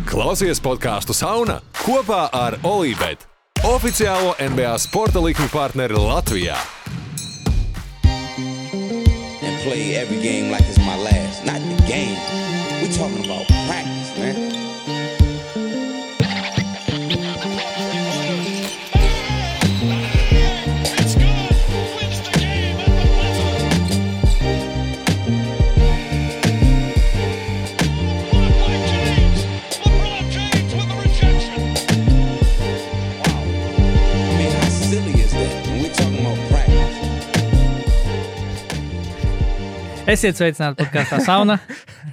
Klausies podcastu Sauna kopā ar Olībet, oficiālo NBA sporta likmi partneri Latvijā. And play every game like it's my last. Not the game. We talking about practice, man. Esiet sveicināti podkastā Sauna.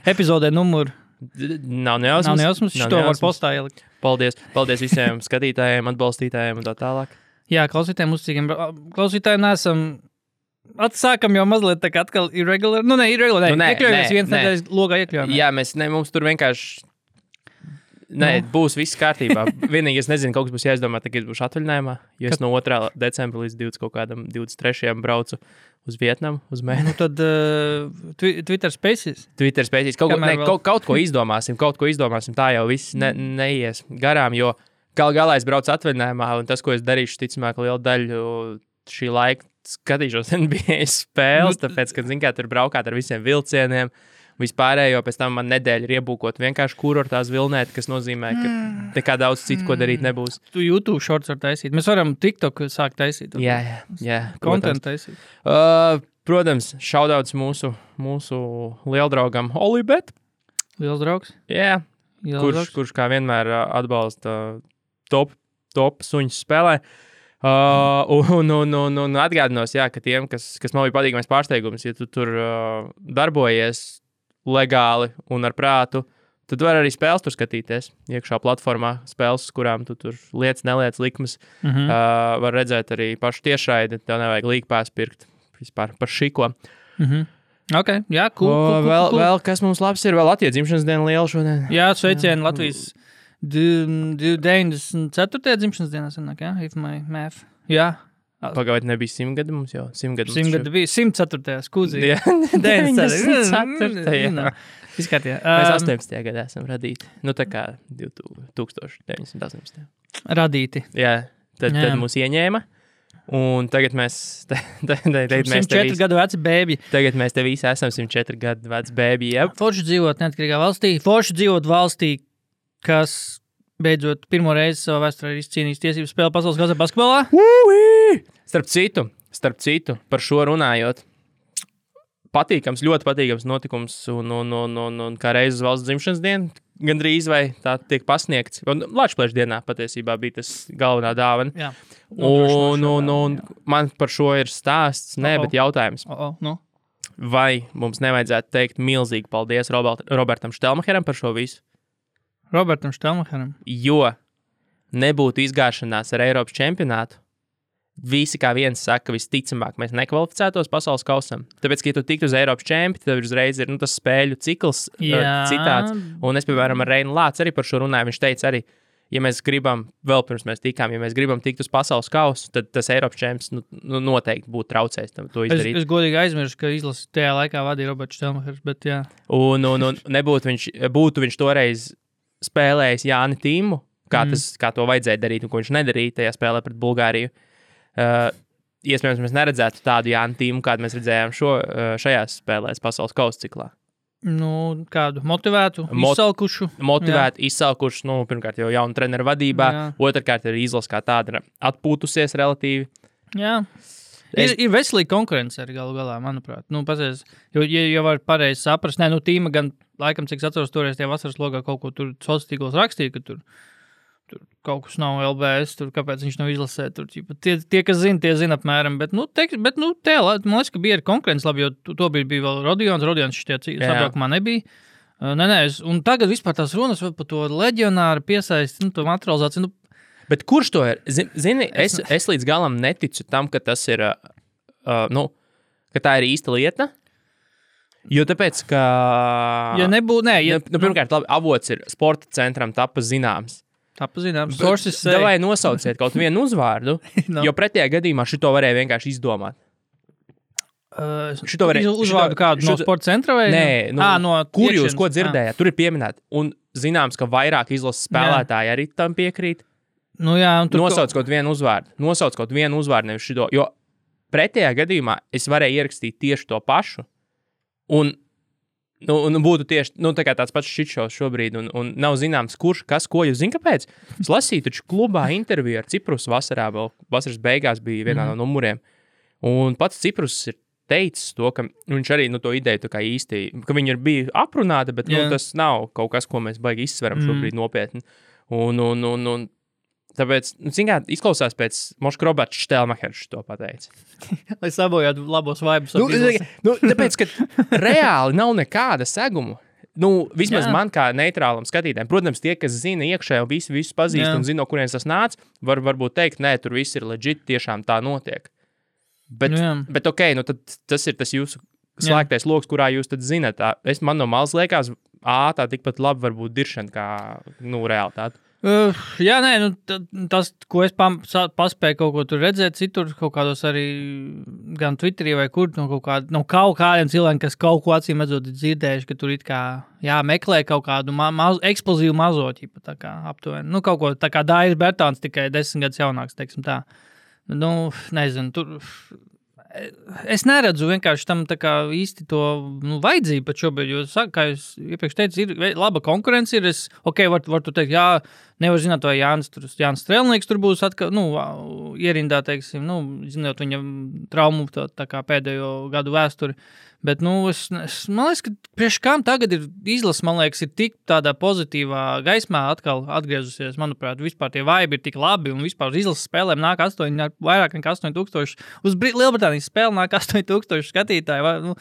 Epizodē numur... Nav nejausmas. Šito var postā ielikt. Paldies visiem skatītājiem, atbalstītājiem un tā tālāk. Jā, klausītājiem, uzticīgiem klausītājiem nesam... Atsākam jau mazliet tā kā atkal irregular. Iekļaujamies viens nedēļas logā iekļaujam. Jā, mums tur vienkārši... Būs viss kārtībā. Vienīgi es nezinu, kaut kas būs jāizdomā, tagad būšu atvaļinājumā, jo es no 2. decembra līdz 23. braucu uz Vietnamu, uz mēnesi. Nu tad Twitter Spaces. Kaut ko izdomāsim, tā jau viss neies garām, jo galā es braucu atvaļinājumā, un tas, ko es darīšu, ticamāk, lielu daļu šī laika skatīšos NBA spēles, tāpēc, ka, tur braukāt ar visiem vilcieniem, vispārējo, pēc tam man nedēļa ir iebūkot vienkārši kurortās vilnēt, kas nozīmē, ka nekā daudz citu, ko darīt nebūs. Tu YouTube shorts var taisīt. Mēs varam TikTok sākt taisīt. Jā. Content taisīt. Protams, šaudauts mūsu lieldraugam Olībet. Liels draugs? Jā. Kurš kā vienmēr atbalsta top suņus spēlē. Un atgādinos, ka tiem, kas man bija patīkamais pārsteigums, ja tu tur darbojies legāli un ar prātu, tad var arī spēles tur skatīties. Iekšā platformā spēles, kurām tu tur neliec likmes, var redzēt arī pašu tiešraidi, tev nevajag līgpās pirkt vispār par šiko. Ok, jā, cool. Vēl kas mums labs ir, vēl Latvijas dzimšanas diena liela šodien. Jā, sveicieni Latvijas 94. dzimšanas dienā sanāk, jā, if my math. Jā. Pagaid nebija 100 gadi mums jau. 100 gadi bija 104. skūzī. Jā, 94. Izkārtījā. Mēs 18. gadā esam radīti. Nu tā kā 1918. Radīti. Jā, tad mūs ieņēma. Un tagad mēs... 104 gadu veci bēbi. Tagad mēs te visi esam 104 gadu veci bēbi, jā. Forši dzīvot neatkarīgā valstī. Forši dzīvot valstī, kas... beidzot pirmo reizi savā vēsturē ir izcīnījis tiesības spēle pasaules kausā basketbolā. Starp citu, par šo runājot, ļoti patīkams notikums un kā reizes valsts dzimšanas diena, gandrīz vai tā tiek pasniegts. Lačplēša dienā patiesībā bija tas galvenā dāvana. Jā. Un man par šo ir stāsts, bet jautājums. Vai mums nevajadzētu teikt milzīgi paldies Robertam Štelmacheram par šo visu? Robertam Štelmacheram. Jo nebūtu izgāšanās ar Eiropas čempionātu, visi kā viens saka, visticamāk, mēs nekvalificētos pasaules kausam. Tāpēc, ka ja tu tiktu uz Eiropas čempi, tad uzreiz ir tas spēļu cikls citāds. Un es, piemēram, ar Reinu Lācu arī par šo runāju. Viņš teica arī, ja mēs gribam, vēl pirms mēs tikām, ja mēs gribam tikt uz pasaules kausu, tad tas Eiropas čemps noteikti būtu traucējis to izdarīt. Es godīgi aizmirsu, ka izlasi tajā laikā vadīja Roberts Štelmachers, bet jā. Un būtu viņš toreiz spēlējis Jāni Tīmu, kā to vajadzēja darīt un ko viņš nedarīja tajā spēlē pret Bulgāriju. Iespējams, mēs neredzētu tādu Jāni Tīmu, kādu mēs redzējām šajās spēlēs pasaules kausa ciklā. Kādu motivētu, izsalkušu. Izsalkušu, pirmkārt jau jaunu treneru vadībā, otrkārt ir izlase kā tāda atpūtusies relatīvi. Jā. Ir veselīga konkurence arī galu galā, manuprāt. Pasies, jo var pareizi saprast, Tīma gan, laikam, cik atceros toreiz tie vasaras logā kaut ko tur sociālos tīklos rakstīja, ka tur kaut kas nav LBS, tur kāpēc viņš nav izlasē. Tur, tie, kas zina, tie zina apmēram, bet man liekas, ka bija arī konkurence labi, jo to bija vēl Rodions šitie sabraukumā nebija. Un tagad vispār tās runas par to leģionāru piesaisti, to materializāciju, Bet kurš to ir? Zini, es līdz galam neticu tam, ka tas ir, ka tā ir īsta lieta. Jo tāpēc, ka... pirmkārt, labi, avots ir sporta centram tapa zināms. Davai nosauciet kaut vienu uzvārdu, jo pretējā gadījumā šito varēja vienkārši izdomāt. Šito varēja uzvārdu kādu no sporta centra vai? Nē, no kur jūs ko dzirdējāt? Tur ir pieminēti. Un zināms, ka vairāk izlases spēlētāji arī tam piekrīt. Nu jā, un Nosauc kaut vienu uzvārdu, nevis šito. Jo pretējā gadījumā es varēju ierakstīt tieši to pašu. Un būtu tieši tā kā tāds pats šitšos šobrīd. Un nav zināms, kurš, kas, ko jūs zināt, kāpēc. Es lasīju taču klubā interviju ar Ciprus vasarā, vēl vasaras beigās bija vienā no numuriem. Un pats Ciprus ir teicis to, ka viņš arī to ideju tā kā īsti, ka viņi ir bija aprunāti, bet tas nav kaut kas, ko mēs baigi izsveram šobrīd nopietni. Un tāpēc, izklausās pēc Moška Roberts Štelmachers to pateica. Lai sabojātu labos vibes. Tāpēc, ka reāli nav nekāda seguma. Vismaz man kā neitrālam skatītājiem. Protams, tie, kas zina iekšē un visus pazīst un zina, no kurienes tas nāc, varbūt teikt, nē, tur viss ir legit, tiešām tā notiek. Bet ok, tad tas ir tas jūsu slēgtais loks, kurā jūs tad zinat. Man no malas liekas, tā tikpat labi varbūt diršana kā realitāte. Tas, ko es paspēju kaut ko tur redzēt, citur kaut kādos arī gan Twitterī vai kur, kaut kādiem cilvēkiem, kas kaut ko acīm redzot dzirdējuši, ka tur it kā meklē kaut kādu eksplozīvu mazoķi, tā kā aptuveni. Kaut ko tā kā Dairis Bertāns, tikai 10 gadus jaunāks, teiksim tā. Nezinu, tur es neredzu vienkārši tam tā kā īsti to vajadzību pat šobrīd, jo, kā jūs iepriekš teicu, ir laba konkurence, var tu teikt, nevar zināt, vai Jānis Strelnieks tur būs atkal, ierindā, teiksim, zinot viņa traumu tā kā pēdējo gadu vēsturi, bet, man liekas, ka priekš kām tagad ir izlase, man liekas, ir tik tādā pozitīvā gaismā atkal atgriezusies, manuprāt, vispār tie vibe ir tik labi, un vispār uz izlases spēlēm nāk vairāk nekā 8000, uz Lielbritānijas spēle nāk 8000 skatītāji,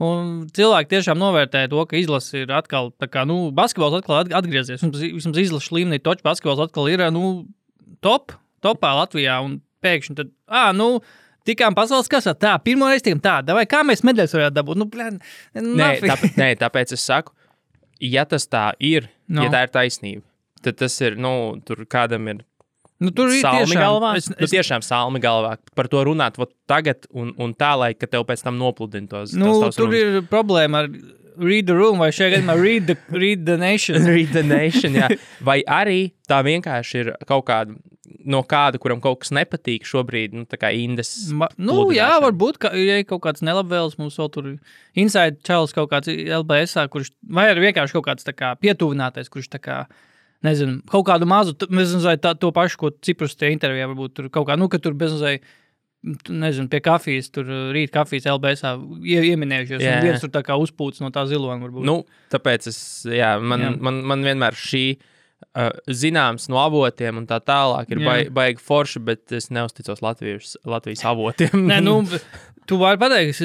un cilvēki tiešām novērtē to, ka izlase ir atkal, tā kā, basketbols atkal atgriezies, un vismaz izlases līmenī toču basketbols atkal ir, topā Latvijā, un pēkšņi tad, tikām pasaules kasā, pirmo reizi tikām vai kā mēs medaļas varētu dabūt? Tāpēc es saku, ja tas tā ir, ja tā ir taisnība, tad tas ir, tur kādam ir salmi galvā. Tiešām salmi galvā. Par to runāt tagad un tā, lai ka tev pēc tam nopludina tos tur runas. Ir problēma ar read the room, vai šajā gadījumā read the nation. Read the nation, jā. Vai arī tā vienkārši ir kaut kāda, no kāda, kuram kaut kas nepatīk šobrīd, tā kā indes varbūt, ja kaut kāds nelabvēls, mums vēl tur inside čalis kaut kāds LBS-ā, vai arī vienkārši kaut kāds tā kā pietuvinātais, kurš tā kā, nezinu, kaut kādu mazu, nezinu, to pašu, ko Ciprus tie intervijā varbūt tur kaut kā, ka tur bezmazai, nezinu, pie kafijas, tur rīt kafijas LBS-ā ieminējušies, un viens tur tā kā uzpūts no tā zilona varbūt. Tāpēc man vienmēr šī zināms no avotiem un tā tālāk ir baigi forši, bet es neusticos Latvijas avotiem. Tu vari pateikt,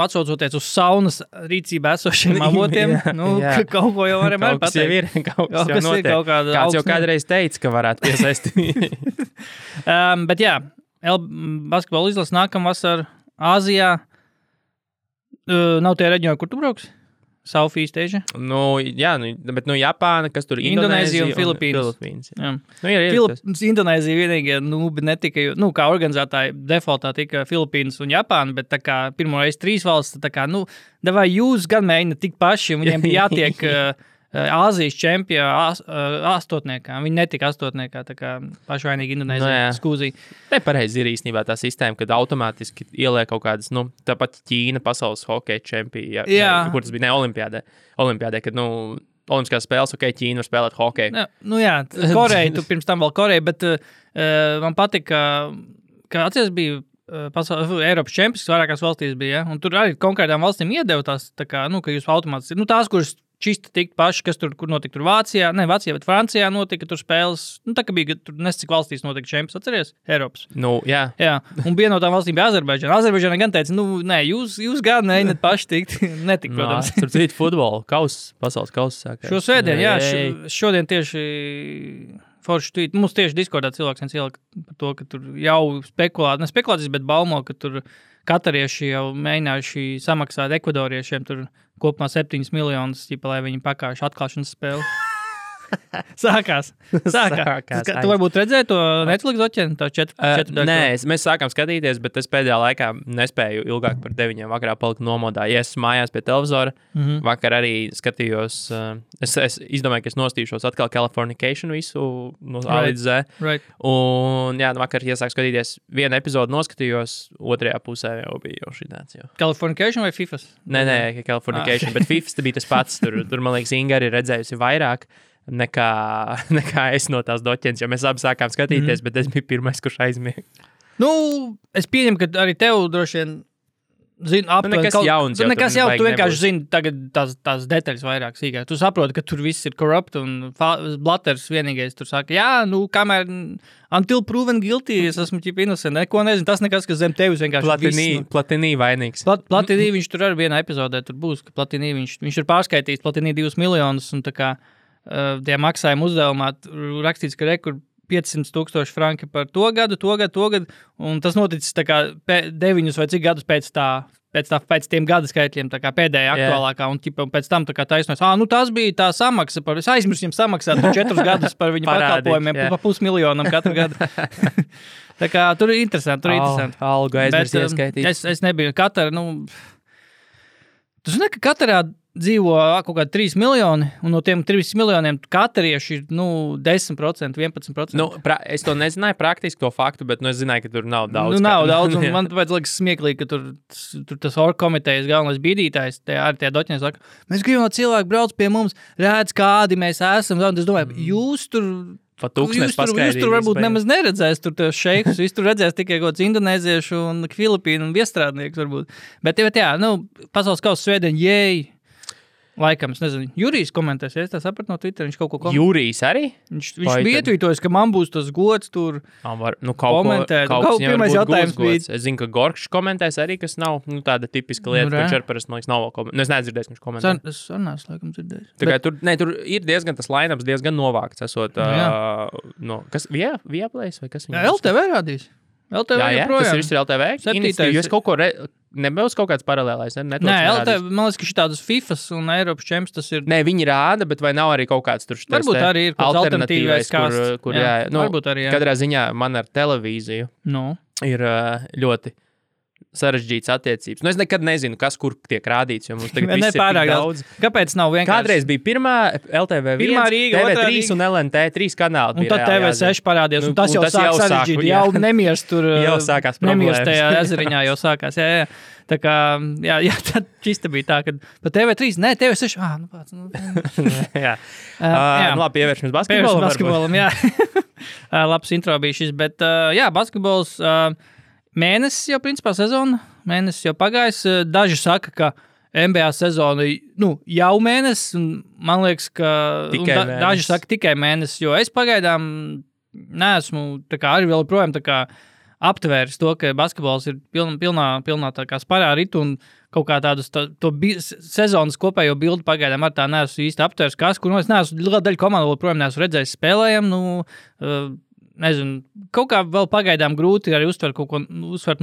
atsaucoties uz saunas rīcībā esošiem avotiem, kaut ko jau varam arī pateikt. Kaut kas jau notiek. Kāds jau kādreiz teica, ka varētu piesaistīt. Bet basketbola izlase nākamvasar Āzijā. Nav tie reģioni, kur tu brauks? Southeast Asia? Bet Japāna, kas tur Indonēzija un Filipīnas. Indonēzija vienīgie netika, kā organizētāji defaultā tika Filipīnas un Japāna, bet tā kā pirmo reizi 3 valsts, tā kā, davai jūs gan mēģina tik paši, viņiem bija jātiek Āzijas čempija astotniekā. Viņi netika astotniekā, tā kā pašvainīgi Indonēzija skūzīja. Nepareizi ir īstenībā tā sistēma, kad automātiski ieliek kaut kādas, tāpat Ķīna pasaules hokeja čempija, kur tas bija olimpiādē, kad, olimpiskās spēles, Ķīna var spēlēt hokeju. Koreja, tu pirms tam vēl Koreja, bet man patika, ka atceries bija Eiropas čempions, vairākās valstīs bija, un tur arī konkrētām valstīm iedeva tās, tā kā, ka jūs automātiski, tās, kuras čista tikt paši, kas tur notika tur Vācijā, bet Francijā notika tur spēles, tā kā bija tur nescik valstīs notika čempions, atceries? Eiropas. Jā. Un viena no tām valstīm bija Azerbaidžana. Azerbaidžana gan teica, jūs gan neņat paši tikt, netik, protams. Tur cita futbola pasaules kausa sākās. Šo svētdien, šodien tieši forši tweet, mums tieši Discordā cilvēks viens ielika par to, ka tur jau spekulācijas, bet baumo, ka tur katarieši jau mēģinājuši samaksāt ekvadoriešiem tur kopumā 7 miljonus, lai viņi pakājuši atklāšanas spēli. Sākās. Tu varbūt redzēji to Netflix doķeni, to 4 daļu? Nē, mēs sākām skatīties, bet es pēdējā laikā nespēju ilgāk par 9 vakarā palikt nomodā. Ja es mājās pie televizora, vakar arī skatījos, es izdomāju, ka es nostīšos atkal Californication visu no A līdz Z. Right. Un jā, vakar iesāku skatīties vienu epizodu noskatījos, otrajā pusē jau bija jau šī tāds. Californication vai FIFAs? Nē, Californication, bet FIFAs bija tas pats. Tur man liekas, Inga arī redzējusi vairāk nekā es no tās doķenes, jo mēs abi sākām skatīties, bet es biju pirmais, kurš aizmiega. Nu, es pieņemu, ka arī tev droši vien zini aptuveni. Nekas jauns. Nekas jauns, tu vienkārši zini tagad tās detaļas vairāk sīkāk. Tu saproti, ka tur viss ir corrupt un Blatters vienīgais tur saka, jā, nu, kamēr until proven guilty, es esmu ķip innocent, neko nezinu, tas nekas, kas zem tevis vienkārši Platini vainīgs. Platini viņš tur arī vienā epizodē tur būs, ka Platini viņš ir pārskaitījis Platini 2 miljonus un tā kā tie maksājuma uzdevumā rakstīts, ka rekur 500,000 franki par to gadu, un tas noticis tā kā 9 vai cik gadus pēc tiem gada skaitļiem, tā kā pēdējā aktuālākā, un pēc tam tā kā taisnojas, nu tas bija tā samaksa, es aizmirsu viņam samaksāt 4 gadus par viņu pakalpojumiem, pa 500,000 katru gadu. Tā kā tur ir interesanti, Algu aizmirst ieskaitīt. Es nebiju Katara, tu zini, ka Katarā dzīvo kaut kādi 3 miljoni, un no tiem 3 miljoniem katarieši ir, 10%, 11%. Es to nezināju praktiski to faktu, bet es zināju, ka tur nav daudz. Nav daudz, un man tāpēc liekas smieklīgi, ka tur tas orgkomitejas galvenais bīdītājs, arī tie doķiņi saka, mēs gribam, lai cilvēki brauc pie mums, redz, kādi mēs esam, un es domāju, jūs tur varbūt nemaz neredzēs tur tos šeikus, jūs tur redzēs tikai kaut kāds indonēziešu un Filipīnu un viestrādnieks varbūt. Bet jā, pasaules kausa svētdien, jēj! Laikam, es nezinu, Jurijs komentēs, ja es tā sapratu no Twitter, viņš kaut ko komentē. Jurijs arī? Viņš bija ietvītojis, ka man būs tas gods tur komentēt. Pirmais jautājums bija. Es zinu, ka Gorkšs komentēs arī, kas nav tāda tipiska lieta, ka Čerparas, man liekas, nav vēl komentēt. Es nedzirdēju, ka viņš komentē. Es neesmu laikam dzirdējis. Tur ir diezgan tas line-ups, diezgan novākts, esot, kas, Viaplays vai kas viņam? LTV rādīs. LTV joprojām. Tas ir viss ir LTV? Jo es kaut ko nebūs kaut kāds paralēlais. Nē, LTV, man liekas, ka šitādas FIFAs un Eiropas čemps tas ir. Nē, viņi rāda, bet vai nav arī kaut kāds tur štais varbūt arī ir kaut alternatīvais, kur varbūt arī, jā. Katrā ziņā man ar televīziju ir ļoti sarežģītas attiecības. Es nekad nezinu, kas kur tiek rādīts, jo mums tagad viss ir tik daudz. Kāpēc nav vienkārši? Kādreiz bija pirmā LTV1, TV3 un LNT, 3 kanāli. Un tad TV6 parādījās, un tas jau sāk sarežģīt. Jau nemiers tur, jau sākās problēmas. Nemiers tajā ezeriņā jau sākās, jā. Tā kā, jā, tad čista bija tā, ka pa TV3, nē, TV6, jā. Labi, pievēršamies basketbolam. Jā. Labs intro bija šis, bet, jā, basketbols, mēnesis jau principā sezona, mēnesis jau pagājis. Daži saka, ka NBA sezona, jau mēnesis, un man liekas, ka daži saka tikai mēnesis, jo es pagaidām neesmu tā kā arī vēl projām tā kā aptvēris to, ka basketbols ir pilnā tā kā sparā ritu un kaut kā tādus sezonas kopējo bildi pagaidām ar tā neesmu īsti aptvēris, kur es neesmu liela daļa komandu, projām neesmu redzējis spēlējam, nezinu, kaut kā vēl pagaidām grūti arī uztvert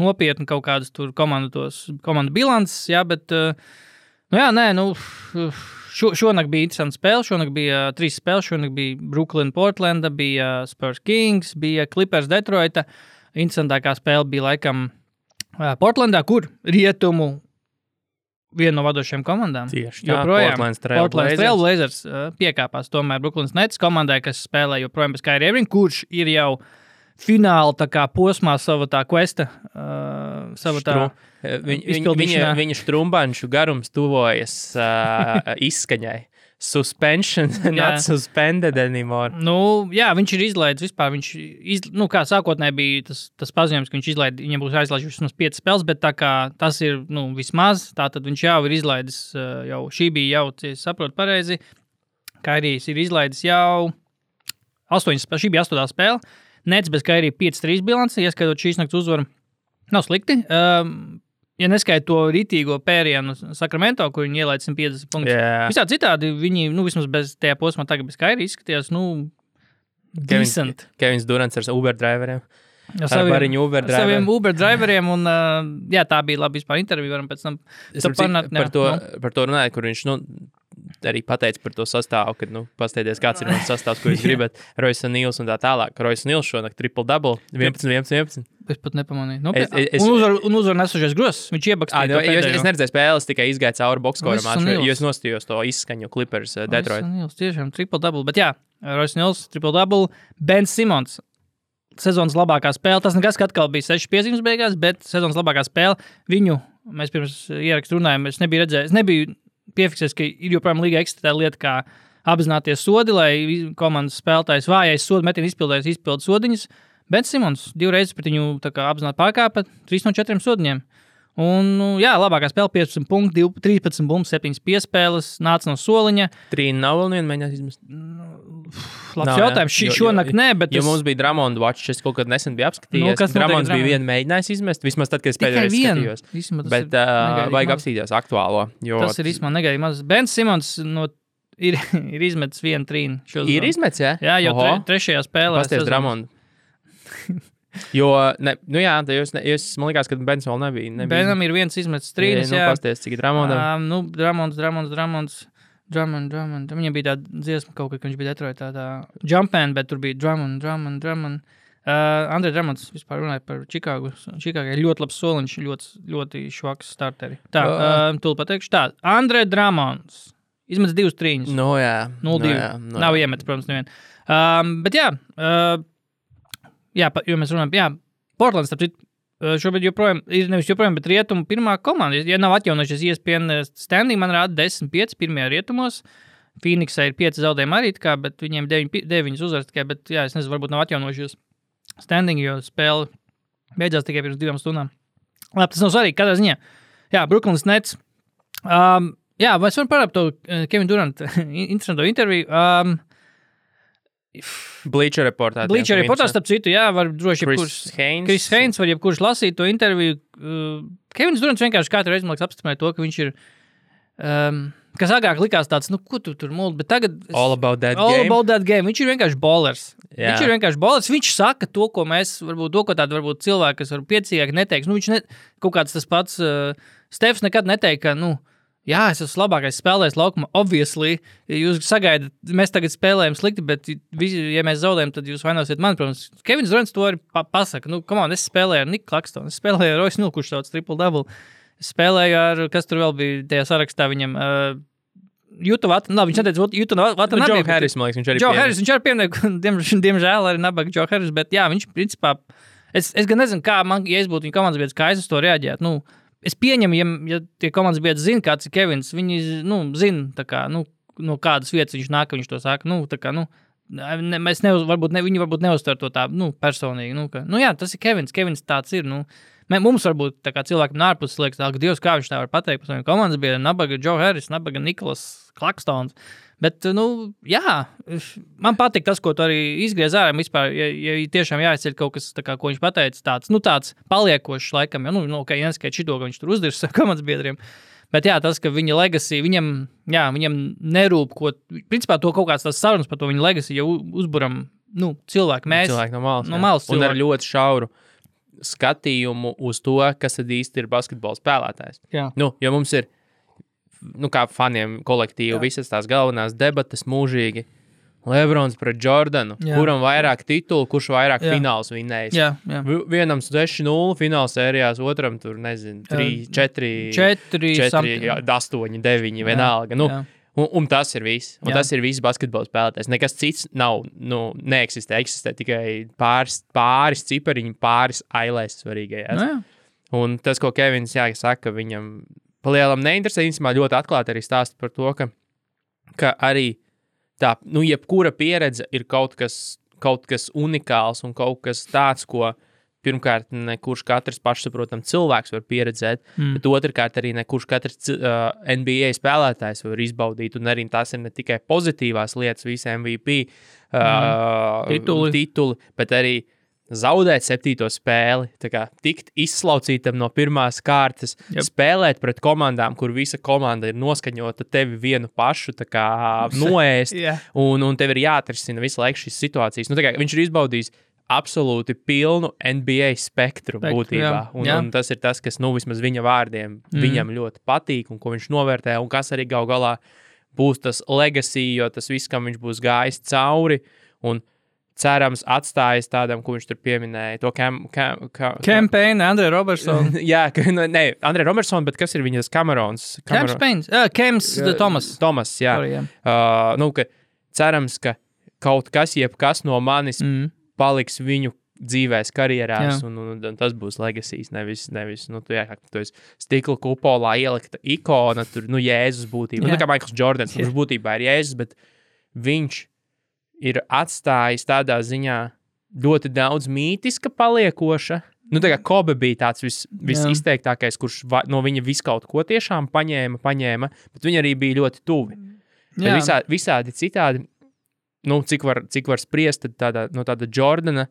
nopietni kaut kādas tur komandu bilances, jā, bet, šonakt bija interesanta spēle, šonakt bija 3 spēles, šonakt bija Brooklyn, Portlanda, bija Spurs Kings, bija Clippers, Detroita. Interesantākā spēle bija laikam Portlandā, kur rietumu viena no vadošajām komandām. Tieši tā, Portland Trail Blazers piekāpās tomēr Brooklyn Nets komandai, kas spēlē joprojām bez Kyrie Irving, kurš ir jau fināla tā kā posmā sava tā questa, sava tā izpildīšanā. Viņa štrumbanšu garums tuvojas izskaņai. Suspension, not suspended anymore. Jā, viņš ir izlaidis vispār. Kā sākotnēji bija tas paziņojums, ka viņš izlaid, viņam būs aizlaidis vismaz 5 spēles, bet tā kā tas ir, vismaz, tātad viņš jau ir izlaidis, šī bija jau, ja saprotu pareizi, Kairijs ir izlaidis jau 8 spēles, šī bija 8. spēle, Nets bez Kairija 5-3 bilanci, ieskaitot šīs nakts uzvaru, nav slikti. Ja neskaita to ritīgo pērienu Sacramento, kur viņi ielaid 150 punktus. Yeah. Visā citādi viņi, vismaz bez tajā posmā tagad bez Kairi izskatījās, decent. Kevins Durants ar Uber-driveriem. Ar saviem Uber-driveriem, un tā bija labi vispār intervija, varam pēc tam par to runāt, kur viņš, arī pateica par to sastāvu, kad, pasteities, kāds ir mans sastāvs, ko jūs gribat. Royce O'Neals un tā tālāk. Royce O'Neals šonakt triple-double, 11. Es pat nepamanīju. Un uzvar nesušies grozs. Viņš iebakstīja. Es neredzēju spēles, tikai izgāju cauri boxscoram maču, jo es nostījos to izskaņu Clippers Detroit. Royce O'Neals, tiešām triple-double. Bet jā, Royce O'Neals, triple-double. Ben Simmons. Sezonas labākā spēle. Tas nekas, ka atkal bija 6 piezīmes beigās, bet sezonas labākā spēle. Viņu, mēs pirms ierakstu runājām, es nebiju redzējis, nebiju piefiksējis, ka ir joprojām līga eksistē lieta, kā apzināties sodi, lai komandas spēlētājs vājais sodu metienu izpildu sodiņas. Ben Simmons 2 reizes pret viņu apzināti pārkāpa 3 no 4 sodiņiem. Un, jā, labākā spēle 15 punkti, 13 bumbas, 7 piespēles, nāca no soliņa. 3 nav vēl viena mēģināt izmest. Labs jautājums. Šonakt nē, bet... Jo mums bija Drummond watch, es kaut kad nesen biju apskatījies. Drummonds bija viena mēģinājis izmest, vismaz tad, kad es pēdējais skatījos. Bet vajag apskatīties aktuālo. Tas ir īstenībā negaidīgi maz. Ben Simmons ir izmetis 1 trīnu. Ir izmetis, jā? Jā, jau trešajā spēlē. Pasties Drummond. Jo, jūs, man liekas, ka Bens vēl nebija. Benam ir viens izmetis trīnis, jā. Pasties, cik Drummondam. Drummonds. Viņam bija tāda dziesma kaut kad, ka viņš bija Detroitā tā Jumpman, bet tur bija Drummond. Andre Drummonds vispār runāja par Čikāgu. Čikāgai ļoti labs soliņš, ļoti švaks starteri. Tā, tūlīt pateikšu tā. Andre Drummonds izmetis 2 trīņus. No jā. 0-2. Nav iemetis, protams, nevien. Bet jā, jo mēs runājam, jā, Portlands, starp citu, šobrīd joprojām, nevis joprojām, bet rietumu pirmā komanda. Ja nav atjaunojušies ESPN standing, man rāda 10-5 pirmajā rietumos. Phoenixā ir 5 zaudējumi arī, bet viņiem 9 uzvaras tikai, bet jā, es nezinu, varbūt nav atjaunojušies standing, jo spēle beidzās tikai pirms 2 stundām. Labi, tas nav svarīgi, kādā ziņā. Jā, Brooklyn Nets. Jā, mēs varam parāpt to Kevin Durant interesanto interviju. Bleacher reportā. Bleacher reportā, starp citu, jā, var droši Chris Haynes var jebkurš lasīt to interviju. Kevins Durants vienkārši katru reizi, man liekas, apstiprināja to, ka viņš ir, kas agrāk likās tāds, ko tu tur muldi, bet tagad... All about that game. Viņš ir vienkārši bowlers. Jā. Viņš ir vienkārši bowlers. Viņš saka to, ko mēs, varbūt cilvēki, kas varbūt piecīgāk neteiks. Kaut kāds tas pats Stefs nekad neteikt, ka, jā, es esmu labākais spēlējs laukumā, obviously. Jūs sagaidat, mēs tagad spēlējam slikti, bet ja mēs zaudējam, tad jūs vainosiet mani, protams. Kevins Durants to arī pasaka. Es spēlēju ar Niku Klakstonu, es spēlēju ar Royce O'Neal, kurš sauc triple-double. Es spēlēju ar, kas tur vēl bija tajā sarakstā viņam, Juta Vatana, viņš neteica Juta Vatana. Joe Harris, man liekas, viņš arī Joe Harris, viņš arī pieminēja, diemžēl arī nabaga Joe Harris, bet jā, viņš principā, es gan nezinu, kā man, ja es būtu viņa komandas biedrs, kā es uz to reaģētu, Es pieņemu, ja tie komandas biedri zina, kāds ir Kevins, viņi, zina, tā kā, no kādas vietas viņš nāk, viņš to saka, viņi varbūt neuztver to tā, personīgi, jā, tas ir Kevins tāds ir, mums varbūt tā kā cilvēkam ārpus liekas, ka Dievs, kā viņš tā var pateikt par saviem komandas biedriem, nabaga Joe Harris, nabaga Nikolas Klakstons, bet, jā, man patīk tas, ko tu arī izgriez ārā, vispār, ja tiešām jāizceļ kaut kas, tā kā, ko viņš pateica, tāds paliekošs laikam, neskait šito, ka viņš tur uzdirs komandas biedriem, bet jā, tas, ka viņa legacy, viņam nerūp, principā to kaut kāds tās sarunas par to viņa legacy, ja uzburam, cilvēki no malas un ar ļoti šauru skatījumu uz to, kas tad īsti ir basketbola spēlētājs. Jā. Jo mums ir kā faniem kolektīvu, visas tās galvenās debatas mūžīgi. Lebrons pret Jordanu, kuram vairāk titulu, kurš vairāk fināls vinnējis. Jā. Vienam 6-0 fināls sērijās, otram tur, 4, 8, 9, vienalga. Un tas ir viss. Un tas ir viss basketbola spēlētājs. Nekas cits nav, neeksistē. Eksistē tikai pāris cipariņi, pāris ailēs svarīgajās. Un tas, ko Kevins saka, viņam palielam neinteresē, īstenībā ļoti atklāti arī stāsta par to, ka arī tā, jebkura pieredze ir kaut kas unikāls un kaut kas tāds, ko pirmkārt nekurš katrs pašsaprotam cilvēks var pieredzēt, bet otrkārt arī nekurš katrs NBA spēlētājs var izbaudīt, un arī tās ir ne tikai pozitīvās lietas, visi MVP tituli, bet arī zaudēt 7. spēli, tā kā tikt izslaucītam no pirmās kārtas, spēlēt pret komandām, kur visa komanda ir noskaņota tevi vienu pašu, tā kā noēst, un tev ir jāatrisina visu laiku šīs situācijas. Tā kā viņš ir izbaudījis absolūti pilnu NBA spektru būtībā, un tas ir tas, kas, vismaz viņa vārdiem, viņam ļoti patīk, un ko viņš novērtē, un kas arī gal galā būs tas legacy, jo tas viss, kam viņš būs gājis cauri, un cerams atstājis tādam, ko viņš tur pieminēja, to Campaign, Andre Robertson. Jā, ne, Andre Robertson, bet kas ir viņas Camerons? Kems, Thomas. Thomas, jā. Sorry, jā. Ka cerams, ka kaut kas, jebkas no manis paliks viņu dzīvēs, karjerās, un tas būs legacies, nevis tu esi stikla kupolā ielikta ikona, tur, Jēzus būtībā. Nu, kā Michaels Jordans, viņš būtībā ir Jēzus, bet viņš ir atstājis tādā ziņā ļoti daudz mītiska paliekoša. Nu, tā kā Kobe bija tāds visizteiktākais, kurš no viņa visu kaut ko tiešām paņēma, bet viņi arī bija ļoti tuvi. Visādi citādi, cik var spriest, tad tāda Jordana,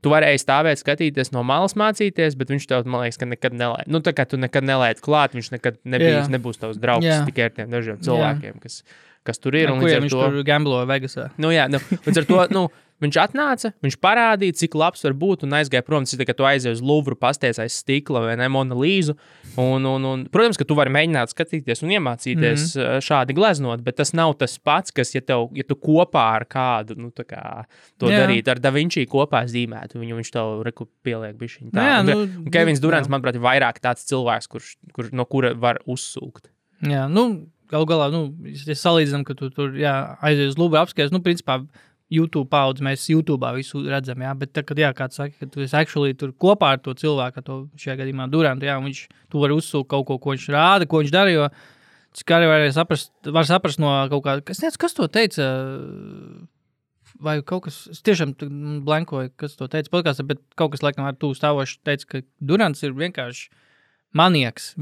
tu varēji stāvēt, skatīties no malas mācīties, bet viņš tev, man liekas, ka nekad nelēt. Tā kā tu nekad nelēt klāt, viņš nekad nebūs tavs draugs tikai ar tiem dažiem cilvēkiem, kas tur ir. Kuriem viņš tur gambloja Vegasā. Līdz ar to, viņš atnāca, viņš parādīja, cik labs var būt un aizgāja prom. Tas ir tā, ka tu aizies uz Louvru, pasties aiz stikla vai ne, Mona Līzu. Un, protams, ka tu vari mēģināt skatīties un iemācīties šādi gleznot, bet tas nav tas pats, kas, ja tu kopā ar kādu, darīt, ar Da Vinci kopā zīmētu, viņš tev pieliek bišķiņ tā. Un Kevins Durants, manuprāt, ir vairāk tāds cilvēks, no kura var uzsūkt. Jā, galu galā, ja salīdzinām, ka tu tur aizies uz Louvru apskaties, principā YouTube paudze, mēs YouTube'ā visu redzam, bet tad, kad kāds saka, ka tu esi actually tur kopā ar to cilvēku, šajā gadījumā Durantu, un tu vari uzsūkt kaut ko viņš rāda, ko viņš dara, jo cik arī var saprast no kaut kā, kas to teica, vai kaut kas, es tiešām blankoju, kas to teica podkāstā, bet kaut kas laikam ar tu stāvoši teica, ka Durants ir vienkārši manieks,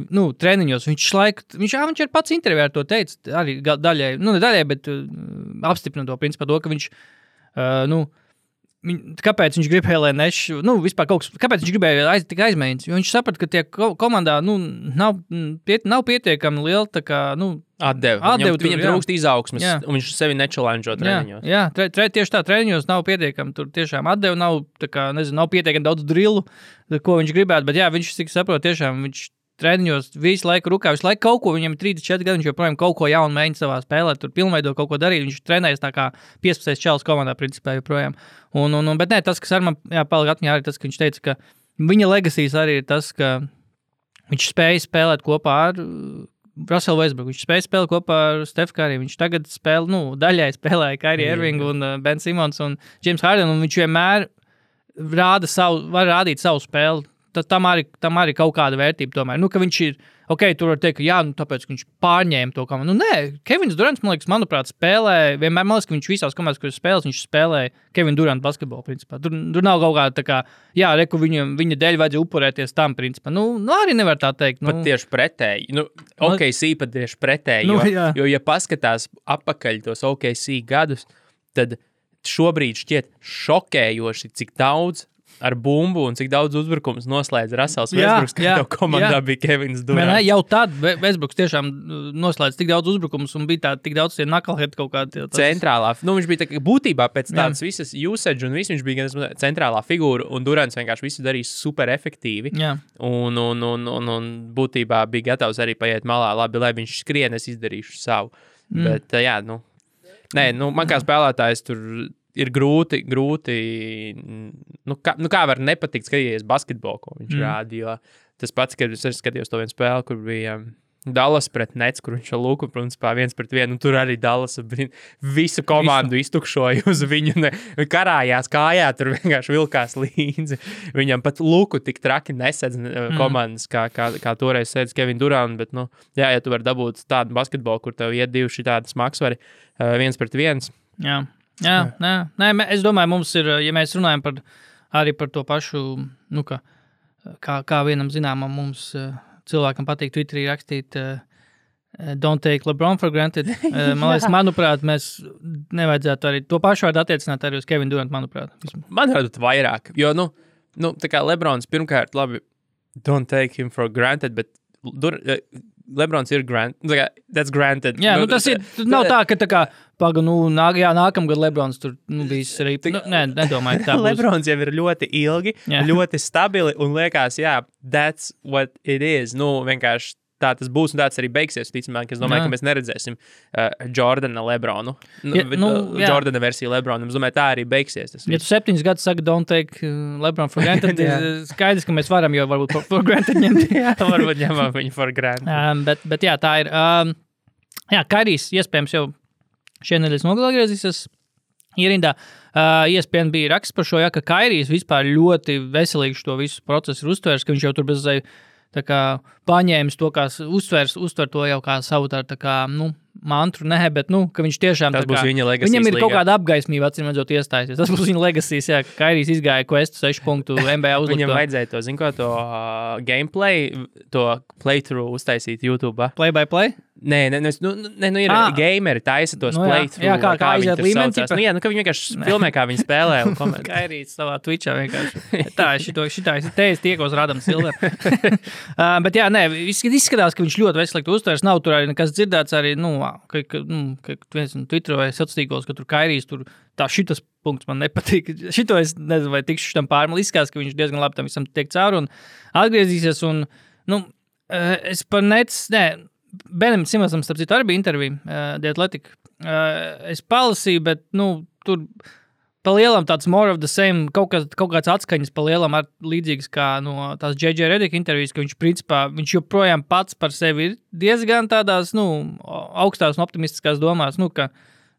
treniņos, viņš ir pats intervijā ar to teica, arī daļai, ne daļai, bet apstiprina to principā to, ka viņš, kāpēc viņš gribēja, lai vispār kaut kas, kāpēc viņš gribēja tik aizmēģināt, jo viņš saprata, ka tie komandā, nav pietiekami liela, tā kā, atdeva. Viņam trūkst izaugsmes, un viņš sevi nečalenžo treniņos. Jā, tieši tā, treniņos nav pietiekami, tur tiešām atdeva, nav pietiekami daudz drillu, ko viņš gribētu, bet viņš, cik saprot, tiešām viņš treniņos visu laiku rukā, visu laiku kaut ko, viņam 34 gadi, viņš joprojām kaut ko jaunu mēģina savā spēlē, tur pilnveido kaut ko darīt, viņš trenējas tā kā 15 čalis komandā principā joprojām. Bet tas, kas ar man palika atmiņā, arī tas, ka viņš teica, ka viņa legacies arī ir tas, ka viņš spēja spēlēt kopā ar Russell Westbrook, viņš spēja spēlēt kopā ar Steph Curry, viņš tagad daļai spēlēja Kyrie Irving un Ben Simmons un James Harden, un viņš vienmēr var rādīt savu spēli. Tam arī kaut kāda vērtība tomēr. Ka viņš ir, tur var teikt, ka tāpēc, ka viņš pārņēma to komandu. Nē, Kevins Durants, manuprāt, spēlē, vienmēr, man liekas, ka viņš visās komandās, kuras spēlēs, viņš spēlē Kevin Durant basketbolu, principā. Tur nav kaut kāda tā kā, viņa dēļ vajadzēja upurēties tam, principā. Arī nevar tā teikt. Pat tieši pretēji. OKC pat tieši pretēji, jo, ja paskatās apakaļ tos OKC gadus, tad šobrīd šķiet šokējoši, cik daudz ar bumbu un cik daudz uzbrukums noslēdz Russells Westbrooks, ka tev komandā bija Kevins Durants. Jau tad Westbrooks tiešām noslēdz tik daudz uzbrukums un bija tik daudz tie knucklehead kaut kādi. Centrālā. Viņš bija tā, būtībā pēc tādas visas usage un viss, viņš bija gan centrālā figūra un Durants vienkārši visu darīja super efektīvi. Un būtībā bija gatavs arī paiet malā. Labi, lai viņš skrien, es izdarīšu savu. Bet man kā spēlētājs tur ir grūti, kā var nepatikt skatīties basketbolu, ko viņš rāda, jo tas pats, kad es skatījos to vienu spēli, kur bija Dallas pret Nets, kur viņš ar Luku, principā 1-1, un tur arī Dallas visu komandu iztukšoja uz viņu, karājās kājā, tur vienkārši vilkās līdzi. Viņam pat Luku tik traki nesedz komandas, kā toreiz sēdz Kevin Durant, bet, ja tu vari dabūt tādu basketbolu, kur tev iet divi šitādi smagsvari 1-1. Es domāju, mums ir, ja mēs runājam arī par to pašu, kā vienam zināmam mums cilvēkam patīk Twitterī rakstīt don't take LeBron for granted. Manuprāt, mēs nevajadzētu arī to pašu vārdu attiecināt arī uz Kevin Durant, manuprāt. Manuprāt, vairāk, jo, tā kā LeBrons pirmkārt, labi, don't take him for granted, bet LeBrons ir that's granted. Jā, tas ir, nav tā, ka tā kā, nākamgad LeBrons tur, bijis arī, nedomāju, tā būs. LeBrons jau ir ļoti ilgi, ļoti stabili, un liekas, that's what it is. Vienkārši tā tas būs un tāds arī beigsies. Ticamāk, es domāju, ka mēs neredzēsim Jordana Lebronu. Jordana versiju Lebronu. Es domāju, tā arī beigsies. Ja tu 7 gadus saki, don't take Lebron for granted, skaidrs, ka mēs varam jau varbūt for granted ņemt. Varbūt ņemam viņu for granted. Bet jā, tā ir. Kairijs iespējams jau šie nedēļas nogalē griezīsies ierindā. ESPN bija raksts par šo, ka Kairijs vispār ļoti veselīgi to visu procesu ir uztvērs, ka viņš jau tur bez tā kā paņēmis to, kā uztver to jau kā savu tā kā, mantru, bet, ka viņš tiešām tas būs viņa legacy. Viņam ir kaut kāda apgaismība, acīm redzot, iestājusies. Tas būs viņa legacy, ka Kairijs izgāja questu 6 punktu NBA uzlikt. Viņam vajadzēja to gameplay, to playthrough uztaisīt YouTube. Play by play? Nē, ir gameri taisa tos playthrough. Jā, kā aiziet līmeni. Ka viņi vienkārši filmē, kā viņi spēlē un komentē. Kairijs savā Twitchā vienkārši. Tā, šitā es tiekos Radam Silver. Bet jā, izskatās, ka viņš ļoti veselīgi uztvers. Nav tur arī nekas dzirdēts arī, viens Twitterā vai sociālos, ka tur Kairijs tur šitas punkts man nepatīk. Šito es nezinu, vai tikšu šitam pārmali. Izskatās, ka viņš diezgan labi tam visam tiek cauri un atgriezīsies. Un, es par Benim Simonsam, starp citu, arī bija intervija The Athletic. Es palasīju, bet, tur pa lielam tāds more of the same, kaut kāds atskaņas pa lielam ar līdzīgas kā no tās J.J. Redick intervijas, ka viņš, principā, viņš joprojām pats par sevi ir diezgan tādās, augstās un optimistiskās domās, ka,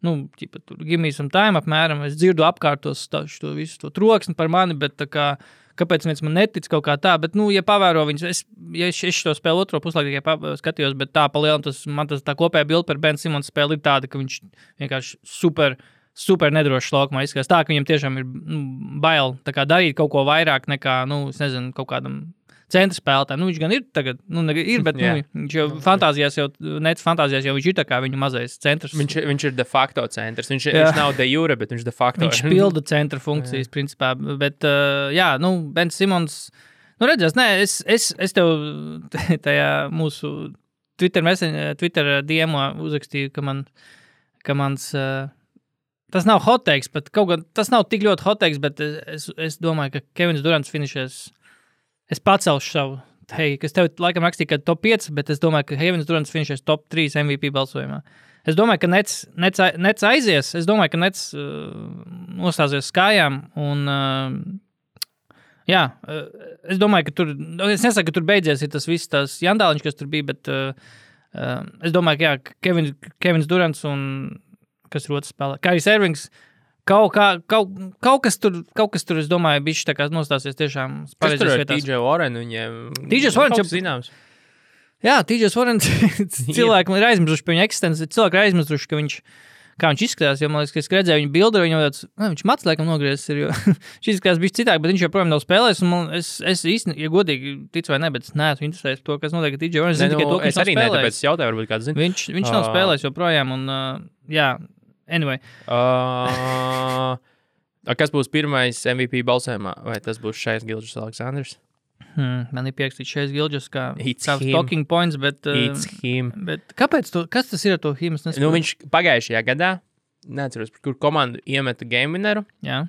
tur give me some time apmēram, es dzirdu apkārtos šo visu to troksni par mani, bet tā kā, kāpēc viens man netic kaut kā tā, bet, ja pavēro viņus, es šo spēlu otro puslaiku tikai skatījos, bet tā pa lielam, man tā kopējā bilde par Ben Simons spēli ir tāda, ka viņš vienkārši super nedrošs laukumā izskatās. Tā, ka viņam tiešām ir bail tā kā darīt kaut ko vairāk nekā, es nezinu, kaut kādam centra spēlētājiem. Viņš gan ir tagad, ir, bet viņš jau fantāzijās jau viņš ir tā kā viņu mazais centrs. Viņš ir de facto centrs. Viņš nav de jure, bet viņš de facto. Viņš pilda centra funkcijas, principā. Bet, Ben Simons, redzēs, es tev tajā mūsu Twitter DM-ā uzrakstīju, ka mans tas nav hot takes, bet tas nav tik ļoti hot takes, bet es domāju, ka Kevins Durants finišēs. Es pacelšu savu, kas tev laikam rakstīja, ka top 5, bet es domāju, ka Kevins Durants finišēs top 3 MVP balsojumā. Es domāju, ka Nets aizies, es domāju, ka Nets nostāsies skājām, un es domāju, ka tur, es nesaku, ka tur beidzies ir tas viss tās jandāliņš, kas tur bija, bet es domāju, ka Kevins Durants un kas ir otrs spēlē. Kairijs Irvings, kaut kas tur, es domāju, bišķi tā kā nostāsies tiešām pareizes vietās. Kas tur ar TJ Warren? TJ Warren jau zināms. Jā, TJ Warren cilvēki ir aizmirsuši pie viņa eksistenci. Cilvēki ir aizmirsuši, ka kā viņš izskatās, jo, man liekas, ka es redzēju viņu bildi, viņam tāds, viņš mats laikam nogriezis ir, jo viņš izskatās bišķi citāk, bet viņš joprojām nav spēlējis, un es īsti, ja godīgi ticu vai ne, bet es neesmu interesējis to, kas notiek ar TJ Warren. Es arī ne, tāpēc es jautāju, varbūt kāds zina. Viņš nav spēlējis joprojām, un anyway. Kas būs pirmais MVP balsojumā? Vai tas būs Šais Gilgeous Aleksandrs? Man ir pierakstīts Šais Gilgeous kā talking points, bet... It's him. Bet kāpēc kas tas ir ar to him? Viņš pagājušajā gadā, neatceros, kur komandu iemeta game winneru. Jā.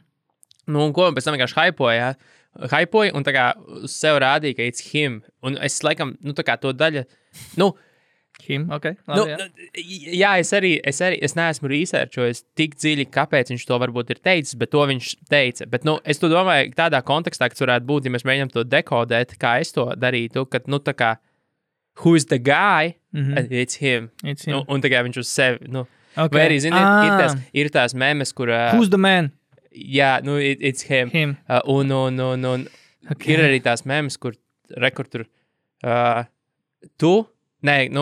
Un ko pēc tam vienkārši hypoja un tā kā sev rādīja, ka it's him. Un es laikam, tā kā to daļa... Him, ok. Labi, es neesmu researchojis tik dziļi, kāpēc viņš to varbūt ir teicis, bet to viņš teica. Bet, es to domāju tādā kontekstā, kas varētu būt, ja mēs mēģinām to dekodēt, kā es to darītu, kad, tā kā, who's the guy? It's him. It's him. Un tā kā viņš uz sevi, okay. Vai arī, ziniet, ir tās memes, kur... Who's the man? Jā, it's him. Un okay. Ir arī tās memes, kur tur tu... Nē,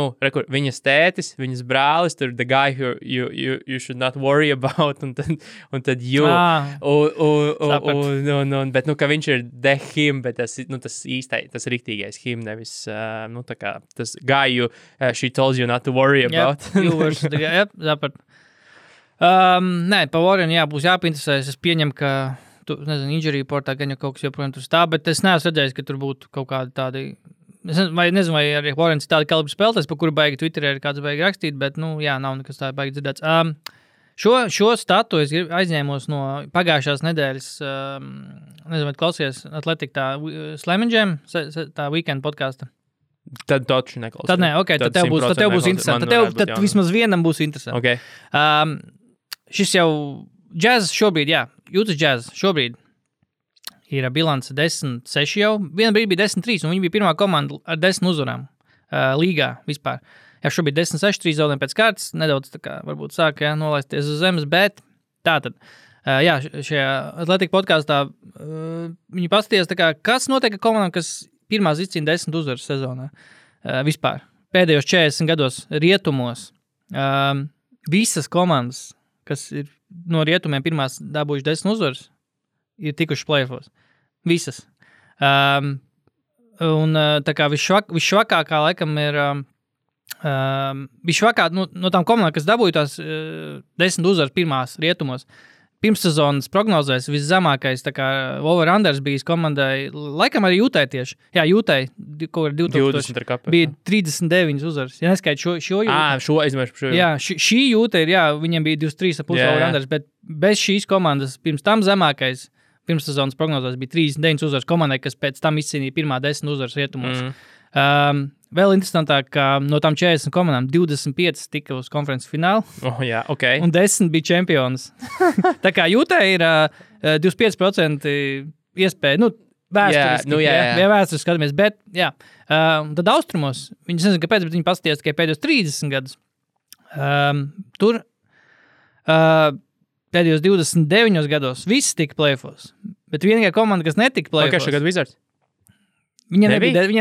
viņas tētis, viņas brālis, tur the guy who you should not worry about, un tad you. Bet, ka viņš ir the him, bet tas īstais, tas riktīgais him, nevis, tā kā, tas guy she tells you not to worry about. You versus the guy, zaprat. Nē, pa Warren, būs jāpinteresēs, es pieņemu, ka, injury reportā gan jau kaut kas joprojām tur stāv, bet es neesmu redzējis, ka tur būtu kaut kādi tādi... Es nezinu, vai arī Warrens ir tāda kalibra spēlētājs, par kuru baigi Twitterē ir kāds baigi rakstīt, bet, nav nekas tā baigi dzirdēts. Šo statu es aizņēmos no pagājušās nedēļas, nezinu, vai klausījies Athletic tā Slam and Jam, tā weekend podkāsta. Tad taču neklausās. Tad nē, ok, tad tev būs interesanti. Tad vismaz vienam būs interesanti. Okay. Šis jau Jazz šobrīd, Utah Jazz šobrīd ir bilance 10-6 jau. Viena brīdī bija 10-3, un viņi bija pirmā komanda ar 10 uzvarām līgā vispār. Jā, šobrīd 10-6, 3 zaudējumi pēc kārtas, nedaudz tā kā varbūt sāk nolaisties uz zemes, bet tātad, šajā Atlētika podkāstā viņi paskatījās, tā kā, kas notiek ar komandām, kas pirmās izcīna 10 uzvaras sezonā vispār. Pēdējos 40 gados rietumos visas komandas, kas ir no rietumiem pirmās dabūjuši 10 uzvaras, ir tikuši play-offos. Visas. Un tā kā visšvakākā laikam ir visšvakāk no tām komandām, kas dabūja tās 10 uzvaras pirmās rietumos. Pirmssezonas prognozēs viszemākais tā kā over-unders bijis komandai, laikam arī Utah tieši. Jā, Utah, ko ir 2000, bija 39 uzvaras. Ja neskait šo Utah. Šo. Jā, šī Utah ir, viņiem bija 23,5 over-unders, bet bez šīs komandas pirms tam zemākais pirmssezonas prognozēs bija 39 uzvaras komandai, kas pēc tam izcīnīja pirmā 10 uzvaras rietumos. Vēl interesantāk, ka no tām 40 komandām 25 tika uz konferences finālu. Okay. Un 10 bija čempionas. Tā kā Utah ir 25% iespēja, vēsturiski, vēsturiski skatāmies, bet, tad austrumos, viņi nezinu, kāpēc, bet viņi paskatījās tikai pēdējos 30 gadus. Tur pēdējos 29 gados viss tika play-offos, bet vienīgā komanda, kas netika play-offos. Okay, šagad Wizards? Viņiem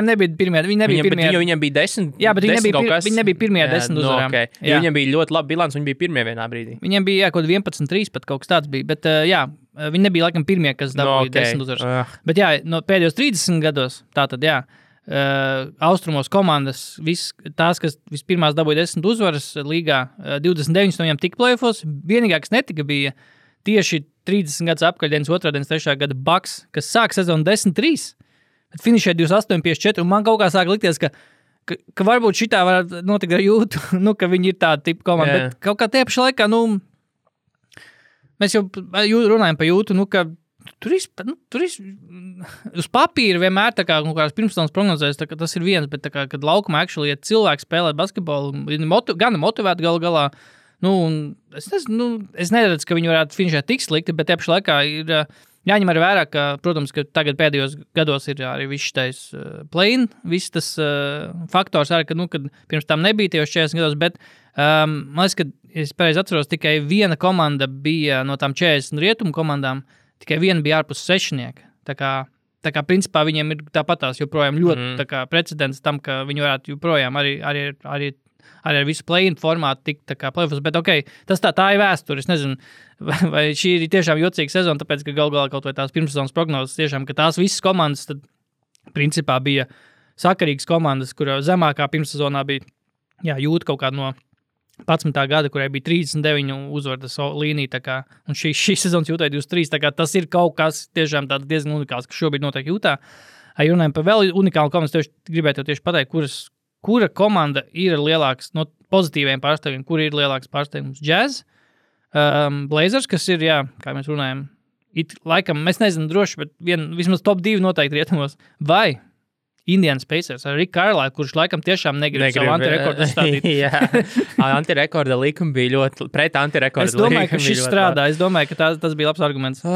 nebija pirmie. Viņiem bija 10. Jā, bet viņi nebija pirmie 10 uzvarām. Okay. Viņiem bija ļoti laba bilance, viņi bija pirmie vienā brīdī. Viņiem bija kaut 11-3, pat kaut kas tāds bija, bet viņi nebija laikam pirmie, kas dabūja 10 uzvaras. Bet no pēdējos 30 gados, tātad austrumos komandas, tās, kas vispirmās dabūja 10 uzvaras līgā, 29 no viņiem tika play-offos, vienīgā, kas netika, bija tieši 30 gadus apkaļ, 2. 3. gada Bucks, kas sāk sezonu 10-3. Bet finišē 28-54, un man kaut kā sāk likties, ka varbūt šitā varētu notikt ar Jūtu, ka viņi ir tāda tipa komanda, bet kaut kā tie pašā laikā, mēs jau runājam par Jūtu, ka tur uz papīra vienmēr tā kā kādas pirmstānas prognozēs, tas ir viens, bet tā kā, kad laukumā actually, ja cilvēki spēlē basketbolu, gan motivēti galu galā, es neredzu, ka viņi varētu finišēt tik slikti, bet tie pašā laikā ir jāņem arī vērā, ka, protams, ka tagad pēdējos gados ir arī viss tais play-in, viss tas faktors arī, kad pirms tam nebija tajos 40 gados, bet man liekas, ka, es pareizi atceros, tikai viena komanda bija no tām 40 rietumu komandām, tikai viena bija ārpus sešnieka. Tā kā principā viņiem ir tāpatās joprojām ļoti tā kā precedents tam, ka viņi varētu joprojām arī ar visu play-in formātu tikt tā kā play-offs, bet tā ir vēsture, es nezinu, vai šī ir tiešām jocīga sezona, tāpēc, ka galu galā kaut vai tās pirmssezonas prognozes tiešām, ka tās visas komandas tad principā bija sakarīgas komandas, kurā zemākā pirmssezonā bija, Jūta kaut kāda no 11. gada, kurai bija 39 uzvaras līnija, tā kā, un šī sezonas Jūtai 23, tā kā tas ir kaut kas tiešām tāds diezgan unikāls, kas šobrīd notiek Jūtā. Runājam par vēl unikālu komandu, gribētu tieši pateikt, kura komanda ir lielāks no pozitīviem pārstāvjiem, kura ir lielāks pārstāvjums? Jazz, Blazers, kas ir, kā mēs runājam, laikam, mēs nezinām droši, bet vismaz top 2 noteikti rietumos, vai Indiana Pacers ar Rick Carlisle, kurš laikam tiešām negrib savu antirekordu stādīt. Antirekorda likuma bija ļoti, pret antirekorda likuma. Es domāju, ka šis strādā, es domāju, ka tas bija labs arguments.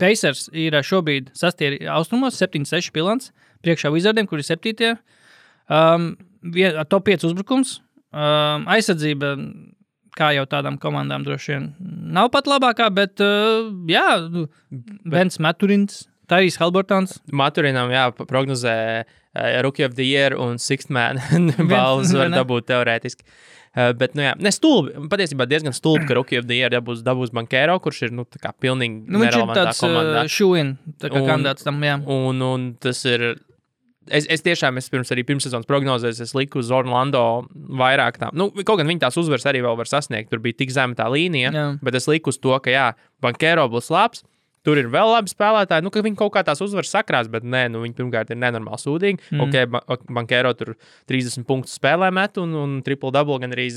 Pacers ir šobrīd 6. austrumos, 7-6 bilants, priekšā Wizardiem, kur ir 7. Top 5 uzbrukums, aizsardzība, kā jau tādām komandām droši vien nav pat labākā, bet Bens Maturins, Tyrese Haliburtons. Maturinam, prognozē Rookie of the Year un Sixth Man balvas var dabūt teorētiski. Bet, stulbi, patiesībā diezgan stulbi, ka Rookie of the Year dabūs Bankero, kurš ir, tā kā pilnīgi nerelevantā komandā. Viņš ir tāds shoe-in, tā kā kandidāts tam, Un tas ir... Es tiešām, pirmssezonas prognozēs, es liku uz Orlando vairāk tām. Kaut gan viņi tās uzvaras arī vēl var sasniegt, tur bija tik zema tā līnija, bet es liku uz to, ka Bankero būs labs, tur ir vēl labi spēlētāji, ka viņi kaut kā tās uzvaras sakrās, bet nē, viņi pirmkārt ir nenormāli sūdīgi. Bankero tur 30 punktus spēlē met un triple-double gan arī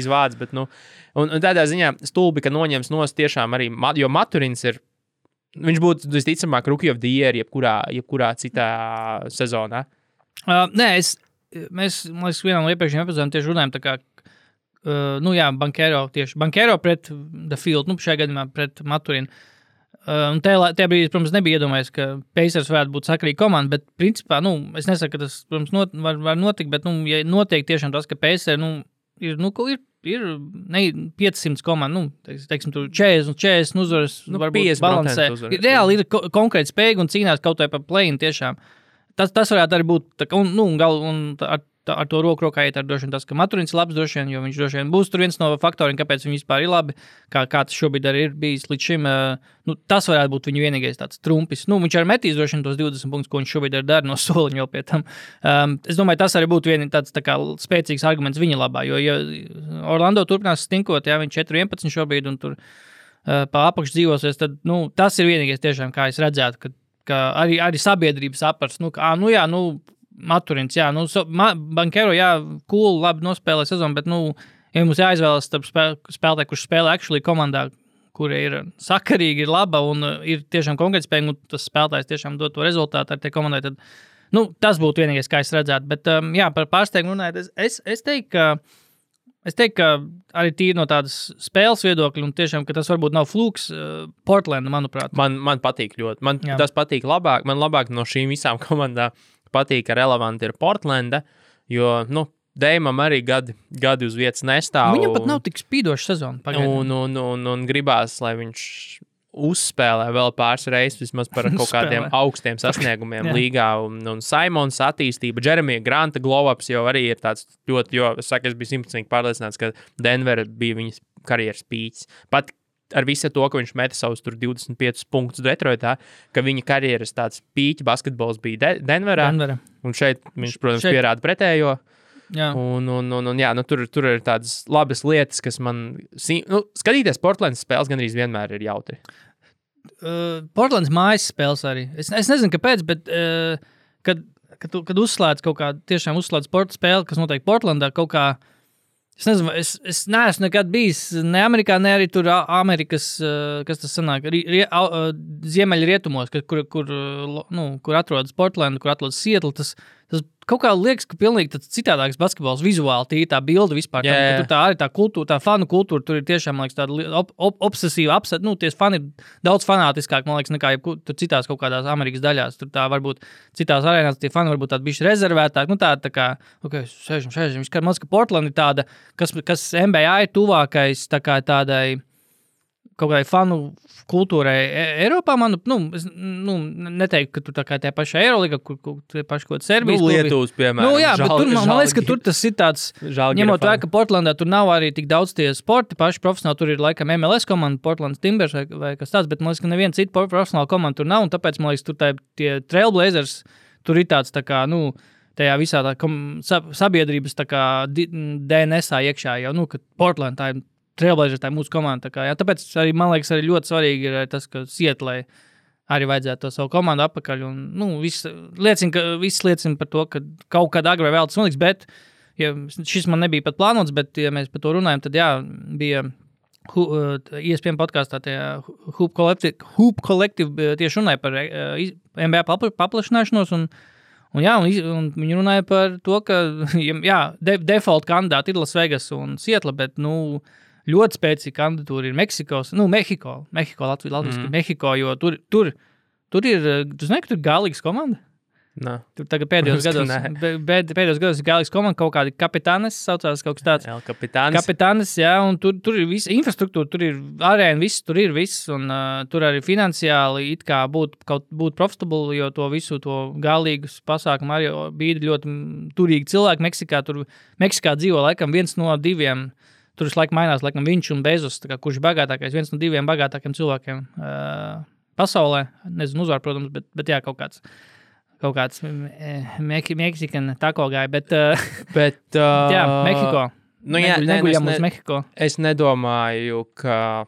vāc, bet, un tādā ziņā stulbi, ka noņems nos tiešām arī, jo Maturins ir, viņš būtu, visticamāk, Rookie of the Year jebkurā citā sezonā. Nē, mēs, man liekas, vienā no iepriekšējiem epizodēm tieši runājam tā kā, Bankero pret The Field, šajā gadījumā pret Maturinu. Un tajā brīdī, protams, nebija iedomājies, ka Pacers varētu būt sakarīga komanda, bet principā, es nesaku, ka tas, protams, var notikt, bet, ja notiek tiešām tas, ka Pacers, ir 500 komanda, teiksim, tur 40 uzvaras, varbūt balansē. Reāli ir konkrēti spējīgi un cīnās kaut vai par play-in tiešām. Tas varētu arī būt, un ar to roku rokā iet ar droši vien tas, ka Maturins ir labs droši vien, jo viņš droši vien būs tur viens no faktoriem, kāpēc viņi vispār ir labi, kā tas šobrīd arī ir bijis līdz šim. Tas varētu būt viņa vienīgais tāds trumpis. Viņš arī metīs droši vien tos 20 punktus, ko viņš šobrīd dara no soliņa vēl pie tam. Es domāju, tas arī būtu tāds tā kā spēcīgs arguments viņa labā, jo ja Orlando turpinās stinkot, viņš 4-11 šobrīd un tur pa apakš dzīvosies, tad tas ir vienīgais tiešām, kā es redzētu, ka arī sabiedrības apars, Maturins, Bankero, cool, labi nospēlē sezonu, bet, ja mums jāizvēlas starp spēlētāju, kurš spēlē actually komandā, kura ir sakarīga, ir laba un ir tiešām konkrētspējīga, un tas spēlētājs tiešām dod to rezultātu ar tie komandai, tad, tas būtu vienīgais, kā es redzētu. Bet, par pārsteigumu runājot, es teiktu, ka arī tīri no tādas spēles viedokļa, un tiešām, ka tas varbūt nav flūks, Portlanda, manuprāt. Man patīk ļoti. Tas patīk labāk. Man labāk no šīm visām komandām patīk, ka relevanti ir Portlanda, jo, Deimam arī gadi uz vietas nestāv. Viņam pat nav tik spīdoša sezona. Un gribās, lai viņš uzspēlē vēl pāris reizes vismaz par kaut kādiem augstiem sasniegumiem līgā. Un Simons attīstība, Jeremija Granta glow-ups jau arī ir tāds ļoti, jo es biju 100% pārliecināts, ka Denver bija viņas karjeras pīķis. Pat ar visu to, ka viņš meta savus tur 25 punktus Detroitā, ka viņa karjeras tāds pīķi basketbols bija Denverā. Un šeit viņš, protams, pierāda pretējo. Jā. Tur ir tādas labas lietas, kas man... skatīties Portlandas spēles gandrīz vienmēr ir jautri. Portlandas mājas spēles arī. Es nezinu, kāpēc, bet kad uzslēdz kaut kā, tiešām uzslēdz sporta spēli, kas notiek Portlandā, kaut kā es nezinu, es neesmu nekad bijis ne Amerikā, ne arī tur Amerikas, kas tas sanāk, ziemeļrietumos, kur atrodas Portlanda, kur atrodas Seattle, tas kaut kā liekas, ka pilnīgi tāds citādāks basketbols vizuāli, tīri tā bilde vispār. Tur tā arī tā kultūra, tā fanu kultūra, tur ir tiešām, man liekas, tāda obsesīva, tie fani ir daudz fanātiskāk, man liekas, nekā tur citās kaut kādās Amerikas daļās. Tur tā varbūt citās arēnās tie fani varbūt tādi bišķi rezervētāk. Tā kā, sēžam. Man liekas, ka Portland ir tāda, kas NBA ir tuvākais tā kā tādai kaut kādai fanu kultūrai Eiropā, es neteiktu, ka tur tā kā tie paši Eiroliga, kur tie paši kaut Serbijas klubi. Lietuvas, piemēram. Bet tur, man liekas, ka tur tas ir tāds, ņemot vērā, ka Portlandā tur nav arī tik daudz tie sporti, paši profesionāli, tur ir laikam MLS komanda, Portlands Timbers vai kas tāds, bet man liekas, ka neviena cita profesionāla komanda tur nav, un tāpēc, man liekas, tur tie Trailblazers, tur ir tāds tā kā, tajā visā tā sabiedrības tā kā DNS-ā iekšā jau, ka Portland tā ir Trailblazers, tā ir mūsu komanda. Tāpēc arī, man liekas, arī ļoti svarīgi ir tas, ka Seattlē arī vajadzētu to savu komandu apakaļ. Un, viss liecina par to, ka kaut kad agrāk vēl tas notiks, bet šis man nebija pat plānots, bet, ja mēs par to runājam, tad bija ESPN podkāstā Hoop Collective tieši runāja par NBA paplašināšanos un viņi runāja par to, ka default kandidāti ir Las Vegas un Seattle, bet, ļoti spēcīga kandidatūra ir Mehiko, latviski Mehiko, jo tur ir, tu zini, ka tur ir galīgas komanda? Nē. Tur tagad pēdējos gados ir galīgas komanda, kaut kādi kapitānes saucās, kaut kas tāds. Kapitānes, jā, un tur ir visa infrastruktūra, tur ir arēna, viss, tur ir viss, un tur arī finansiāli it kā būt profitable, jo to visu to galīgus pasākumu arī bija ļoti turīgi cilvēki Meksikā dzīvo laikam viens no diviem. Tur visu laiku mainās, laikam viņš un Bezos, kurš ir bagātākais, viens no diviem bagātākiem cilvēkiem pasaulē. Nezinu, uzvar, protams, bet jā, kaut kāds Meksikan tako gāja, bet jā, Mehiko. Neguļam uz Mehiko. Es nedomāju, ka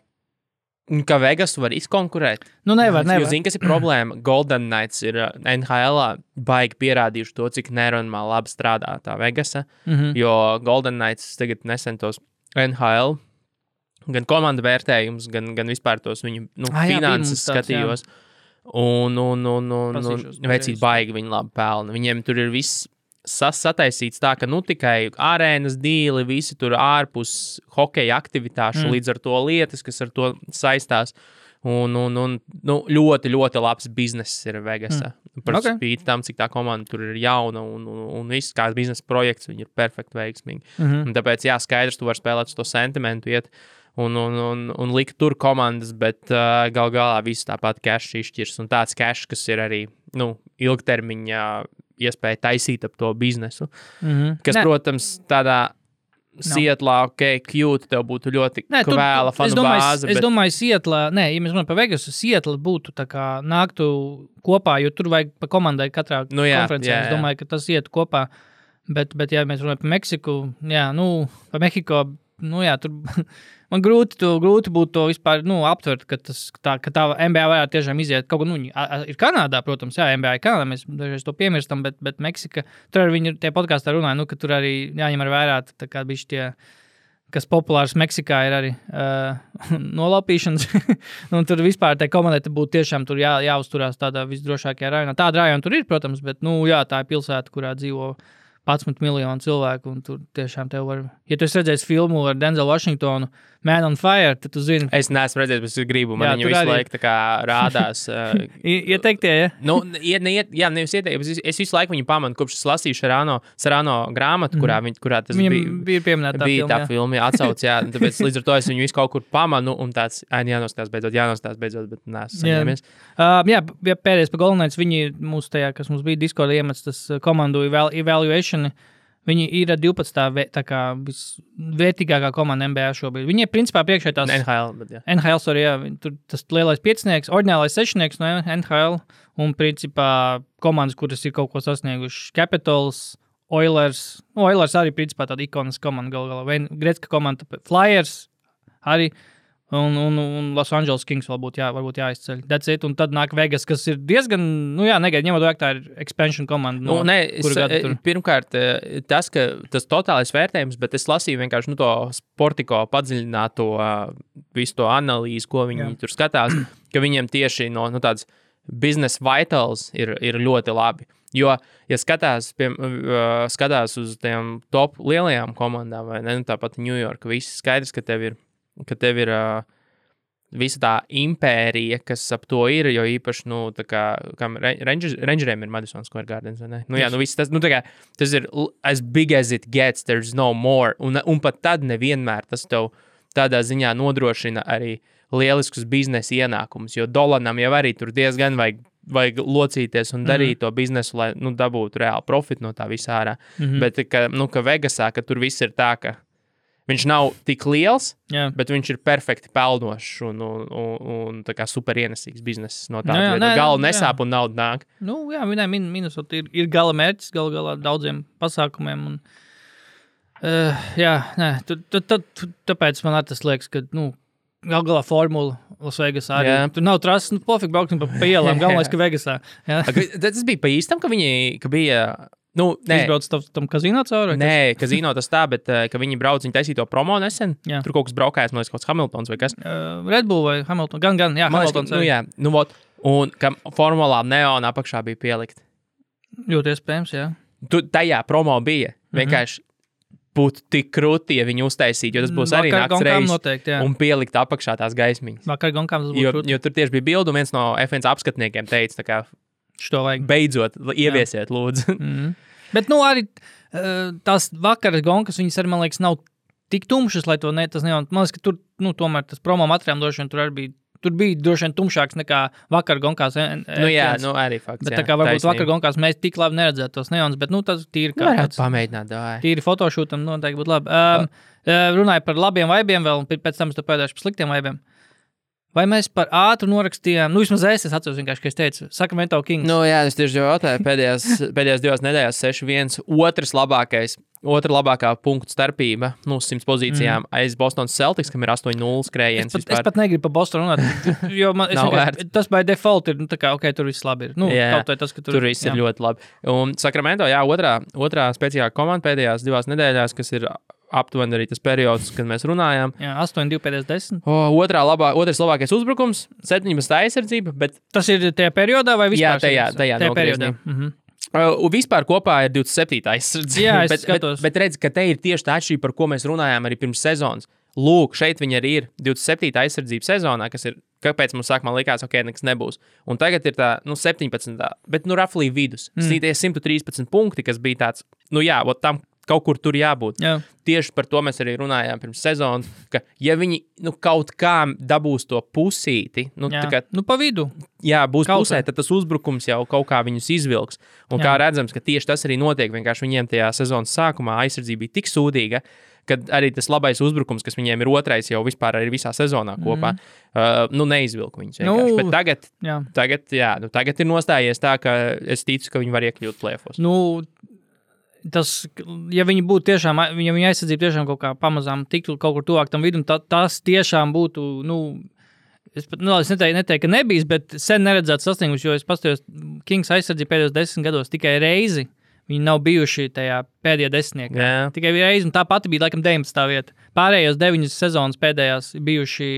Vegas var izkonkurēt. Nevar. Jo zini, kas ir problēma? Golden Knights ir NHL-ā baigi pierādījuši to, cik nenormāli labi strādā tā Vegasa, jo Golden Knights tagad nesen tos NHL, gan komanda vērtējums, gan vispār tos viņu finanses skatījos. Un vecīt baigi viņi labi pelna. Viņiem tur ir viss sataisīts tā, ka tikai arēnas dīli, visi tur ārpus hokeja aktivitāšu, līdz ar to lietas, kas ar to saistās. Un ļoti, ļoti labs bizness ir Vegasā. Par spīti tam, cik tā komanda tur ir jauna un viss kā biznesa projekts, viņi ir perfekti veiksmīgi. Un tāpēc, skaidrs, tu vari spēlēt uz to sentimentu, iet un likt tur komandas, bet gal galā viss tāpat cash izšķirs. Un tāds cash, kas ir arī ilgtermiņā iespēja taisīt ap to biznesu. Kas, protams, tādā Sietlā, cute, tev būtu ļoti kvēla fanu bāze. Es domāju, Sietlā, ja mēs runājam par Vegasu, Sietla būtu tā kā nāktu kopā, jo tur vajag pa komandai katrā konferencē. Es domāju, ka tas ietu kopā, bet ja mēs runājam par Meksiku, par Mehiko, tur man grūti būtu to vispār aptvert, ka tā NBA varētu tiešām iziet. Kaut kā ir Kanādā, protams, NBA ir Kanādā, mēs dažreiz to piemirstam, bet Meksika, tur arī viņi tie podkāstā runāja, ka tur arī jāņem ar vērā, tā kā bišķi tie, kas populārs Meksikā ir arī nolaupīšanas. Un tur vispār tai komandai būtu tiešām tur jāuzturās tādā visdrošākajā rajonā. Tāda rajona tur ir, protams, bet tā ir pilsēta, kurā dzīvo 11 miljonu cilvēku, un tur tiešām tev var... Ja tu esi redzējis filmu ar Denzelu Washingtonu, Man on Fire, tad tu zini... Es neesmu redzējis, bet es gribu, man viņa visu laiku tā kā rādās. Ieteiktie, ja? Nevis ieteikti, es visu laiku viņu pamanu, kopš es lasīju Sarano grāmatu, kurā tas bija pieminēta tā filma, atsauc, tāpēc līdz ar to es viņu visu kaut kur pamanu, un tāds, jānostās beidzot, bet neesmu saņēmies. Pēdējais pa Golden Knights, viņi mūs tajā, kas mums bija Discord iemets, tas komandu evaluation, viņi ir 12. tā kā visvērtīgākā komanda NBA šobrīd. Viņi ir principā priekšā tās... NHL, sorry, tur tas lielais piecinieks, oriģinālais sešnieks no NHL, un principā komandas, kuras ir kaut ko sasnieguši. Capitals, Oilers, arī principā tāda ikonas komanda galā. Gretzka komanda, Flyers arī, un Los Angeles Kings varbūt jāizceļ. That's it, un tad nāk Vegas, kas ir diezgan, negaidīt, ņemot vajag, tā ir expansion komanda. Pirmkārt, tas totālais vērtējums, bet es lasīju vienkārši to Sportiko padziļināto visu to analīzi, ko viņi tur skatās, ka viņiem tieši no tādas business vitals ir ļoti labi. Jo, ja skatās uz tiem top lielajām komandām, vai ne, tāpat New York, viss skaidrs, ka tev ir visa tā impērija, kas ap to ir, jo īpaši, Rangeriem ir Madison Square Gardens, vai ne? Viss tas, tas ir as big as it gets, there's no more, un pat tad nevienmēr tas tev tādā ziņā nodrošina arī lieliskus biznesa ienākumus, jo Dolanam jau arī tur diezgan vajag locīties un darīt to biznesu, lai, dabūtu reāli profitu no tā visā ārā. Bet, ka Vegasā, ka tur viss ir tā, ka viņš nav tik liels, bet viņš ir perfekti pelnošs un tā kā super ienesīgs bizness no tā. Gala nesāp un nauda nāk. Minnesota ir gala mērķis, galā daudziem pasākumiem. Tāpēc man arī tas liekas, ka, galā formula Las Vegasā arī. Tur nav trases, pofīgi brauksim pa ielām, galvenais, ka Vegasā. Tas bija pa īstam, ka bija... Izbrauc tam kazino cauri? Nē, kazino tas tā, bet ka viņi brauc, viņi taisīja to promo nesen. Tur kaut kas braukājās, man liekas, kaut kāds Hamiltons vai kas. Red Bull vai Hamilton? Gan, Hamiltons. Un ka formulā neona apakšā bija pielikt. Ļoti iespējams, jā. Tajā promo bija. Vienkārši būtu tik krūti, ja viņi uztaisītu, jo tas būs arī nakts reizes un pielikt apakšā tās gaismiņas. Vakar gonkām tas būtu krūti. Jo tur tieši bija bildu, viens no F1 apskatniekiem teica, tā kā beidzot, ieviesiet, lūdzu. Bet, arī tās vakaras gonkas, viņas arī, man liekas, nav tik tumšas, lai to tas nevar. Man liekas, ka tur, tomēr tas promo materiāls droši vien tur bija droši vien tumšāks nekā vakar gonkās. Arī fakts. Bet tā kā varbūt vakar gonkās mēs tik labi neredzētu tos neons, bet, tas tīri kā tāds. Pamēģināt, davai. Tīri fotošūtam noteikti būtu labi. Runāju par labiem vaibiem vēl, un pēc tam es pēdēšu par sliktiem vaibiem. Vai mēs par ātru norakstījām, vismaz es atceros vienkārši, ka es teicu, Sacramento Kings. Es tieši jautāju, pēdējās 2 nedēļās 6-1, otra labākā punktu starpība, 100 pozīcijām aiz Bostonas Celtics, kam ir 8-0 skrējiens. Es pat negribu par Bostonu runāt, jo tas by default ir, tur viss labi ir. Tur viss ir ļoti labi. Un Sacramento, otrā spēcīgā komanda pēdējās 2 nedēļās, kas ir aptuveni arī tas periods, kad mēs runājām. 8-2 pēdējās 10. Otrais labākais uzbrukums, 17 aizsardzība, bet... Tas ir tajā periodā vai vispār? Jā, tajā periodā. Vispār kopā ir 27. aizsardzība. Jā, es skatos. Bet redz, ka te ir tieši tā atšķirība, par ko mēs runājām arī pirms sezonas. Lūk, šeit viņi arī ir 27. aizsardzība sezonā, kas ir, kāpēc mums sākumā likās, ok, nekas nebūs. Un tagad ir tā, 17. Bet, roughly vidus. Tie 113 punkti, kas bija tāds, tam kaut kur tur jābūt. Jā. Tieši par to mēs arī runājām pirms sezonas, ka ja viņi kaut kā dabūs to pusīti, pa vidu. Jā, būs pusē, tad tas uzbrukums jau kaut kā viņus izvilks. Un kā redzams, ka tieši tas arī notiek, vienkārši viņiem tajā sezonas sākumā aizsardzība bija tik sūdīga, kad arī tas labais uzbrukums, kas viņiem ir otrais jau vispār arī visā sezonā kopā, neizvilka viņus vienkārši. Bet tagad ir nostājies tā, ka es ticu, ka viņi var iekļūt plēfos. Tas, ja viņi būtu tiešām, ja viņa aizsardzība tiešām kaut kā pamazām tiktu kaut kur tuvāk tam vidum, tas tiešām būtu, es neteiktu, ka nebijis, bet sen neredzēts sasniegums, jo es paskatījos Kings aizsardzību pēdējos 10 gados tikai reizi. Viņi nav bijuši tajā pēdējā desmitniekā. Jā. Tikai reizi, un tā pati bija laikam 19. vieta. Pārējos 9 sezonas pēdējās bijuši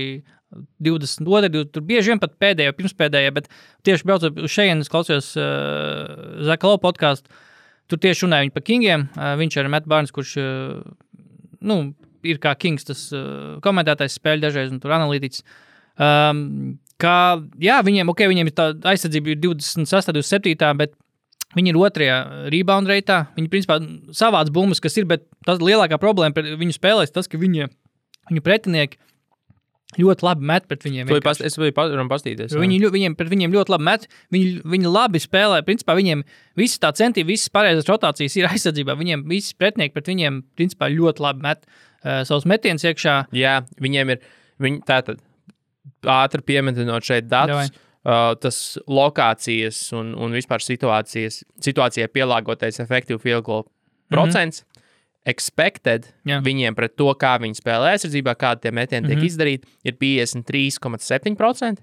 22, tur bieži vien pat pēdējā, pirmspēdējā, bet tieši braucot uz šejienes, klausījos Zaka Lowe podcastu. Tur tieši runāja viņi par Kingiem. Viņš ir Matt Barnes, kurš ir kā Kings tas komentētājs spēļu dažreiz un tur analītiķis. Viņiem ir tā aizsardzība 26, 27, bet viņi ir otrajā rebound reitā. Viņi principā savāc bumbas, kas ir, bet tas lielākā problēma par viņu spēlēs tas, ka viņu pretinieki ļoti labi met pret viņiem. Es biju pastīties. Viņiem pret viņiem ļoti labi met. Viņi labi spēlē. Principā viņiem visi tā centība, visas pareizas rotācijas ir aizsardzībā. Viņiem visi pretinieki pret viņiem principā ļoti labi met savus metienus iekšā. Jā, viņiem ir, tātad ātri piemetinot šeit datus, tas lokācijas un vispār situācijai pielāgotais efektīvu field goal procents. Expected viņiem pret to, kā viņi spēlē aizsardzībā, kādi tie metieni tiek izdarīti, ir 53,7%,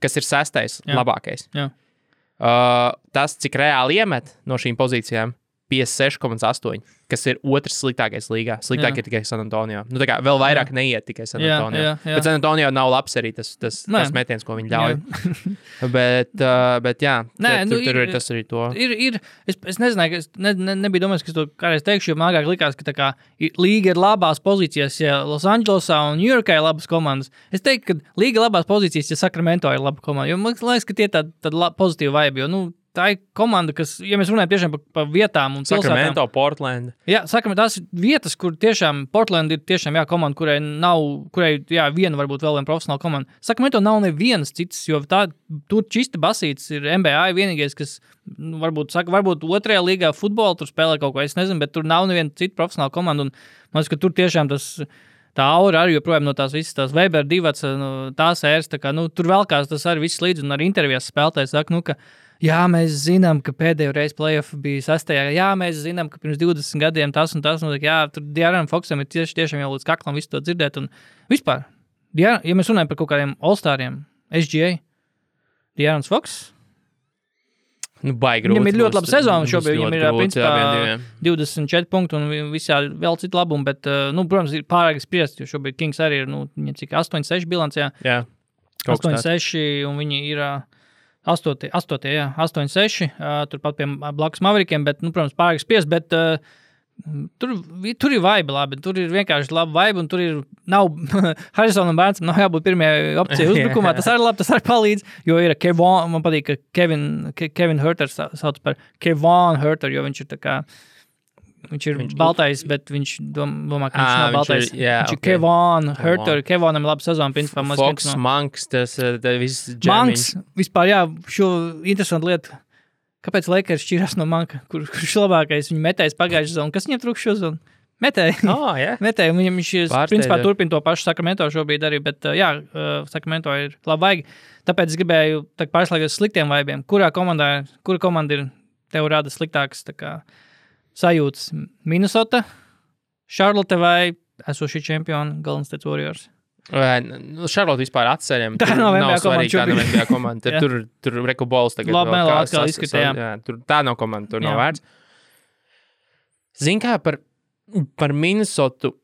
kas ir 6. labākais. Jā. Tas, cik reāli iemet no šīm pozīcijām, 56,8%, kas ir otrs sliktākais līgā. Sliktāk ir tikai San Antonio. Tā kā vēl vairāk neiet tikai San Antonio. Jā. Bet San Antonio nav labs arī tas metiens, ko viņi ļauj. bet jā, tur ir tas arī to. Es nezināju, nebija domājis, ka es to kādreiz teikšu, jo man agrāk likās, ka tā kā līga ir labās pozīcijās, ja Los Angelesā un New Yorkā ir labas komandas. Es teiktu, ka līga ir labās pozīcijas, ja Sacramento ir laba komanda. Jo man liekas, ka tie tāda pozitīva vibe, jo, tā ir komanda, kas, ja mēs runājam tiešām par vietām un pilsētām. Sacramento, Portland. Jā, Sacramento, tās ir vietas, kur tiešām Portland ir tiešām komanda, kurai viena varbūt vēl viena profesionāla komanda. Sacramento nav nevienas citas, jo tur čista basīts ir NBA vienīgais, kas varbūt otrajā līgā futbolu tur spēlē kaut ko, es nezinu, bet tur nav neviena cita profesionāla komanda, un man liekas, ka tur tiešām tā aura arī joprojām no tās visas tās Weber divats, tās ēras, tā kā, tur velkās tas arī viss līdz, un arī intervijās spēlētājs saka, ka jā, mēs zinām, ka pēdējo reizi playoff bija 6. Jā, mēs zinām, ka pirms 20 gadiem tas un tas. Jā, tur De'Aaron Foxam ir tiešām jau līdz kaklam visu to dzirdēt. Un vispār, ja mēs runājam par kaut kādiem all-stariem, SGA, De'Aaron Fox, baigi grūti. Viņam ir ļoti laba sezona šobrīd. Viņam ir principā 24 punkti un visā vēl citu labumu, bet, protams, ir pārāk spriest, jo šobrīd Kings arī ir, viņam cik 8-6 bilancē. Jā. 8-6 un viņi ir 8-6, turpat pie blakus Maverikiem, bet, protams, pārāk spriest, bet tur ir vibe labi, tur ir vienkārši laba vibe, un tur nav, Harrisonam Bērnsam nav jābūt pirmajai opcijai uzbrukumā, tas arī labi, tas arī palīdz, jo ir Kevon, man patīk, ka Kevin Huerter sauc par Kevon Huerter, jo viņš ir tā kā, viņš ir baltais, bet viņš domā, ka viņš nav baltais. Viņš ir Kevon Huerter, Kevonam laba sezona, principā. Fox, Monks, tas viss džemiņš. Monks, vispār, šo interesantu lietu. Kāpēc Lakers šķirās no Monka, kurš labākais viņa metējs pagājušajā sezonā? Kas viņam trūkst šo sezonu? Metēji. Metēji, un viņš principā turpina to pašu Sacramento šobrīd arī, bet Sacramento ir labi vaigi. Tāpēc es gribēju pārslēgties sliktiem vaibiem. Kura komanda ir tev rada sliktākas sajūtas? Minnesota, Charlotte vai esošie čempioni Golden State Warriors? Charlotte vispār atceļam. Tā nav NBA komanda. Tur Reku Bols tagad labi, vēl atkal izskatījām. Tā nav komanda, tur nav vērts. Zin kā par Minnesotu,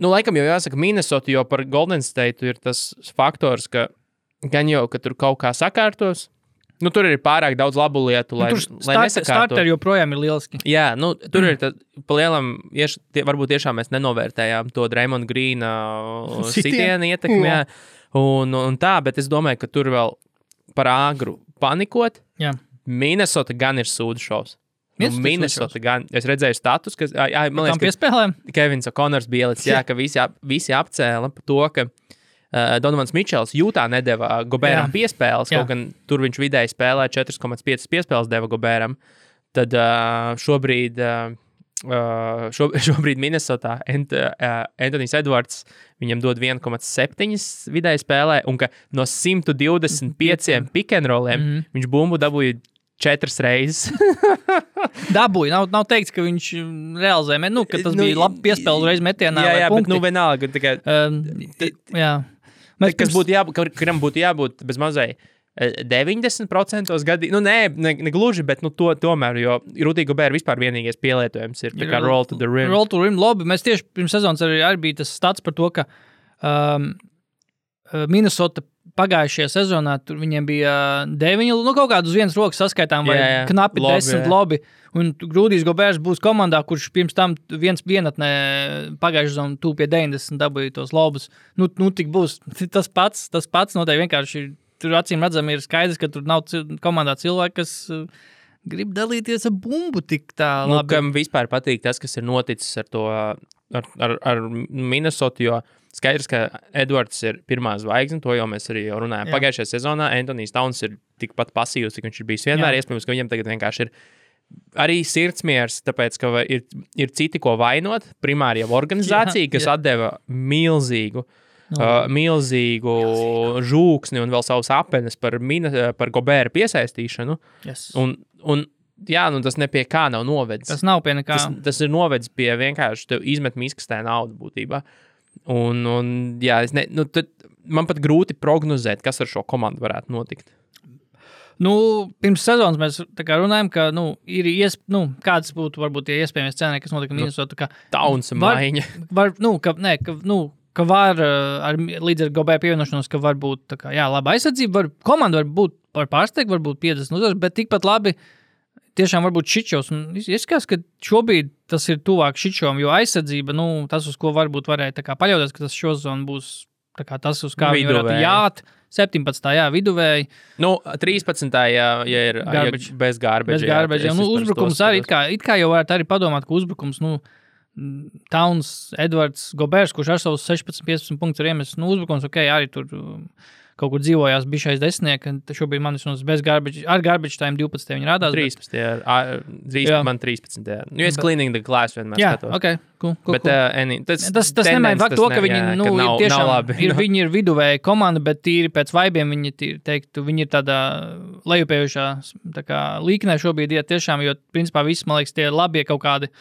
laikam jau jāsaka Minnesota, jo par Golden State ir tas faktors, ka gan jau, ka tur kaut kā sakārtos, Nu, tur ir pārāk daudz labu lietu, lai nesakārtu. Starteri joprojām ir lieliski. Jā, nu, tur ir pa lielam, varbūt tiešām mēs nenovērtējām to Draymond Greena sitienu ietekmi, jā. Un tā, bet es domāju, ka tur vēl par āgru panikot. Jā. Minnesota gan ir sūdu šovs. Minnesota gan, es redzēju status, ka, man liekas, ka Kevins O'Connors bija ielicis, jā, ka visi apcēla par to, ka Donovans Mičels Jūtā nedeva Gobēram piespēles, kaut gan tur viņš vidēji spēlē 4,5 piespēles deva Gobēram. Tad šobrīd Minnesotā Anthony's Edwards viņam dod 1,7 vidēji spēlē, un ka no 125 pick and rolliem viņš bumbu dabūja 4 reizes. Dabūja, nav teikts, ka viņš realizēja, ka tas bija labi piespēles reiz metienā. Jā, bet vienalga. Tikai, jā. Kas kuram būtu jābūt bez mazai 90% gadījumā, ne gluži, bet tomēr, jo Rudy Gobert vispār vienīgais pielietojums ir tā kā roll to the rim. Roll to rim, labi. Mēs tieši pirms sezonas arī bija tas stats par to, ka Minnesota pagājušajā sezonā tur viņiem bija 9, kaut kādu uz vienas rokas saskaitām, vai knapi 10 lobi. Un Rudijs Goberts būs komandā, kurš pirms tam vienatnē pagājušajā sezonā tūp pie 90 dabūja tos lobus. Nu tik būs tas pats noteikti vienkārši. Tur acīm redzam ir skaidrs, ka tur nav komandā cilvēki, kas grib dalīties ar bumbu tik tā labi. Kam vispār patīk tas, kas ir noticis ar to, ar Minnesota, jo skaidrs, ka Edwards ir pirmā zvaigzne, to jau mēs arī runājām. Pagājušajā sezonā Anthony's Towns ir tikpat pasīvs, cik viņš ir bijis vienmēr. Iespējams, ka viņam tagad vienkārši ir arī sirdsmiers, tāpēc, ka ir citi, ko vainot. Primāri jau organizācija, kas atdeva milzīgu žūksni un vēl savus apenes par Gobēra piesaistīšanu. Yes. Un tas ne pie kā nav novedis. Tas nav pie nekā. Tas ir novedis pie vienkārši tev izmet miskastē naudu būtībā. Tad man pat grūti prognozēt, kas ar šo komandu varētu notikt. Pirms sezonas mēs tā kā runājam, ka, ir kāds būtu varbūt tie iespējamie scenāriji, kas notika Minnesota. Tauns maiņa. Ka var līdz ar Gobēra pievienošanos, ka var būt tā kā, laba aizsardzība, komanda var pārsteigt, varbūt 50 uzvaras, bet tikpat labi tiešām varbūt Šičovs. Izskatās, ka šobrīd tas ir tuvāk Šičovam, jo aizsardzība, tas, uz ko varbūt varēja tā kā paļauties, ka tas šozonu būs tā kā tas, uz kā viņi varētu jāt. 17. viduvēji. 13. ja ir bez garbage. Bez garbage. Uzbrukums arī, it kā jau varētu arī padomāt, ka uzbrukums, Towns, Edwards, Goberts, kurš ar savus 16-15 punktus ir iemesis, uzbrukums, arī tur kaut kur dzīvojās bišais desmitnieki, šobrīd man ir bez garbage, ar garbage time 12. viņi rādās. 13. Man 13. Jo es cleaning the glass vienmēr skatos. Jā, ok, cool. Bet tas nemaina faktu to, ka viņi tiešām viņi ir viduvēja komanda, bet tīri pēc vaibiem viņi ir tādā lejupējušā līknē šobrīd iet tiešām, jo principā viss, man liekas, tie ir labie kaut kādi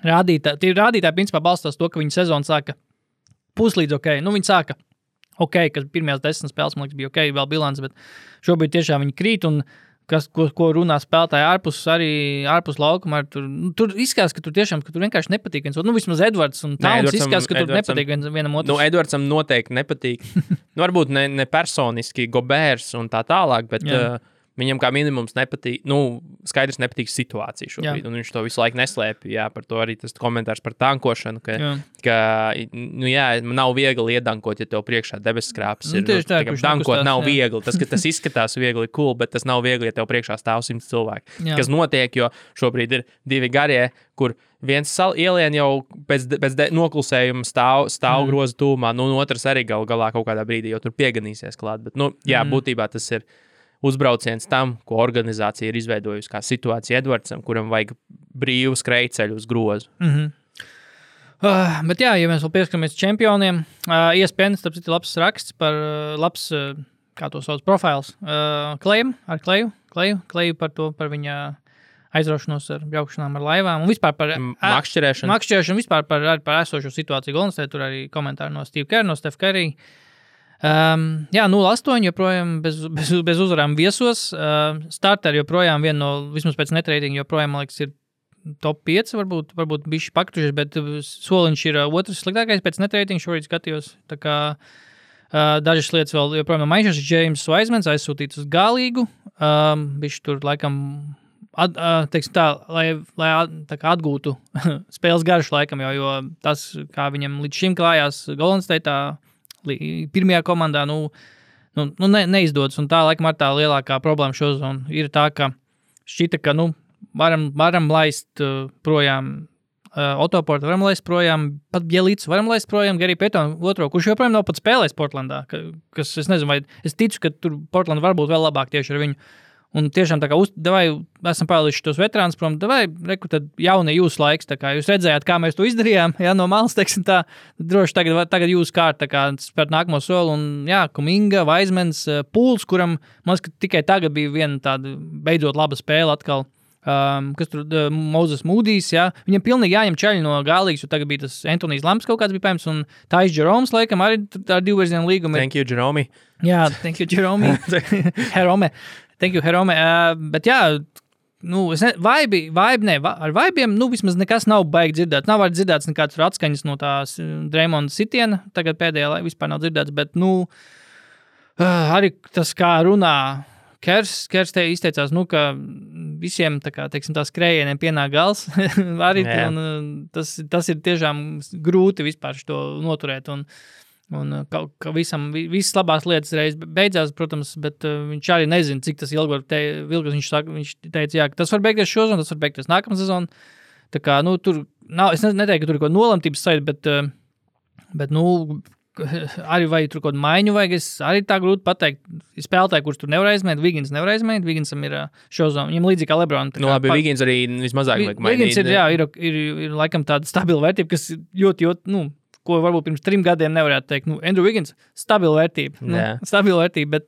rādītāji. Tie rādītāji principā balstās to, ka viņi sezonu sāka puslīdz ok. Viņi sāka ok, ka pirmajās 10 spēles, man liekas, bija ok, vēl bilants, bet šobrīd tiešām viņi krīt, un ko runā spēlētāji ārpus laukuma, tur izskatās, ka tur tiešām, ka tur vienkārši nepatīk viens. Vismaz Edwards un Towns izskatās, ka tur nepatīk vienam otrs. Edwardsam noteikti nepatīk. Varbūt ne personiski Gobērs un tā tālāk, bet viņam kā minimums nepatīk, skaidrs nepatīk situācija šobrīd, un viņš to visu laiku neslēpj, par to arī tas komentārs par tankošanu, ka nav viegli iedankot, ja tev priekšā debesskrāpes ir. Dankot nav viegli, tas izskatās viegli, cool, bet tas nav viegli, ja tev priekšā stāv 100 cilvēki. Kas notiek, jo šobrīd ir 2 garie, kur viens ielien jau pēc noklusējuma stāv groza tūmā, otrs arī galā kaut kādā brīdī jau tur pieganīsies klāt, bet, būtībā tas ir uzbrauciens tam, ko organizācija ir izveidojusi kā situācija Edwardsam, kuram vajag brīvu skrejceļu uz grozu. Bet ja mēs vēl pieskaramies čempioniem, ESPN, tāpēc ir labs raksts par labs, kā to sauc, profils Kleju par viņa aizraušanos ar braukšanām ar laivām un vispār par makšķerēšanu, vispār par esošo situāciju Golden State, tur arī komentāri no Steve Kerr, no Steph Curry. 0-8 joprojām bez uzvarām viesos. Starteri joprojām vismaz pēc netraitinga joprojām, man liekas, ir top 5, varbūt bišķi pakrušies, bet soliņš ir otrs sliktākais pēc netraitinga, šorīt skatījos. Tā kā Dažas lietas vēl joprojām mainījušas. James Wisemans aizsūtīts uz galīgu. Viņš tur laikam, teiksim tā, lai tā kā atgūtu spēles garšu laikam, jo tas, kā viņam līdz šim klājās Golden State'ā, pirmajā komandā, neizdodas. Un tā, laikam, ar tā lielākā problēma šo zonu ir tā, ka šķita, ka, varam laist projām Otoportu, varam laist projām, pat Bjelīcu varam laist projām, Gary Paytonu otro, kurš joprojām nav pat spēlējis Portlandā, kas, es nezinu, vai es ticu, ka tur Portlanda varbūt vēl labāk tieši ar viņu. Un tiešām tā kā, esam pārlīši tos veterāns prom, reku, tad jaunie jūsu laiks, tā kā jūs redzējāt, kā mēs to izdarījām, no malas, teiksim tā, droši tagad jūsu kārt, tā kā spērt nākamo soli, un Kuminga, Wisemans, Pools, kuram, man liekas, ka tikai tagad bija viena tāda beidzot laba spēle atkal, kas tur Moses Moodijs, viņam pilnīgi jāņem čaļi no galīgas, jo tagad bija tas Antonijs Lamps kaut kāds bija paņems, un Tais Jeroms, laikam, arī ar 2-virzienu līgumu. Thank you, Jerome. Jā, thank you, Jerome. Herome. Thank you, Herome. Bet ar vaibiem, vismaz nekas nav baigi dzirdēts. Nav arī dzirdēts nekāds atskaņas no tās Draymonda sitiena, tagad pēdējā vispār nav dzirdēts, bet, arī tas, kā runā Kers te izteicās, ka visiem, teiksim, tā skrējieniem pienāk gals. Arī tas ir tiešām grūti vispār šo noturēt. Un visas labās lietas reiz beidzās, protams, bet viņš arī nezina, cik tas ilgi var vilkt. Viņš teica, ka tas var beigties šo sezonu, tas var beigties nākamā sezonu. Tā kā, tur nav, es neteiktu, ka tur ir kaut nolemtības sajūta, bet arī vai tur kaut maiņu vajag, es arī tā grūti pateikt. Spēlētāji, kurš tur nevar aizmēt, Wiggins nevar aizmēt, Wigginsam ir šo zonu, viņam līdzīgi kā LeBron. Labi, Wiggins arī vismazāk vajag mainīt. Wiggins ir laikam tāda stabila vērtība, kas ļoti, ko varbūt pirms 3 gadiem nevarētu teikt. Andrew Wiggins, stabila vērtība. Stabila vērtība, bet...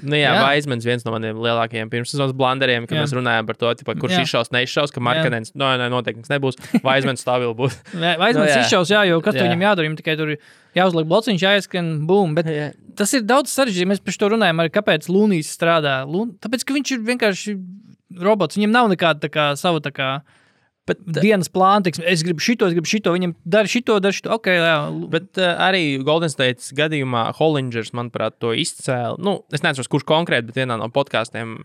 Wisemans viens no maniem lielākajiem pirmssezonas blanderiem, kad mēs runājām par to, kurš izšaus, neizšaus, ka Markanens, noteikti nebūs. Wisemans stabili būs. Wisemans izšaus, jo kas tur viņam jādara, viņam tikai tur jāuzliek blociņš, jāieskan, bum. Bet tas ir daudz sarežģīti. Mēs par to runājam arī, kāpēc Lunijs strādā. Tāpēc, ka viņš ir vienkārši robots. Viņam nav nekāda savu Bet dienas plāna, es gribu šito, viņam dara šito, ok, jā. Bet arī Golden States gadījumā Hollingers, manuprāt, to izcēla. Es neatceros, kurš konkrēti, bet vienā no podkāstiem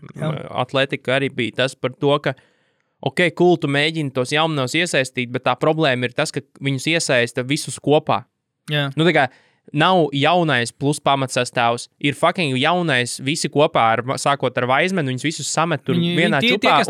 Atletika arī bija tas par to, ka ok, cool, tu mēģini tos jaunos iesaistīt, bet tā problēma ir tas, ka viņus iesaista visus kopā. Jā. Tā kā nav jaunais plus pamatsastāvs, ir fucking jaunais visi kopā, sākot ar Wisemanu, viņus visus samet tur vienā čupā,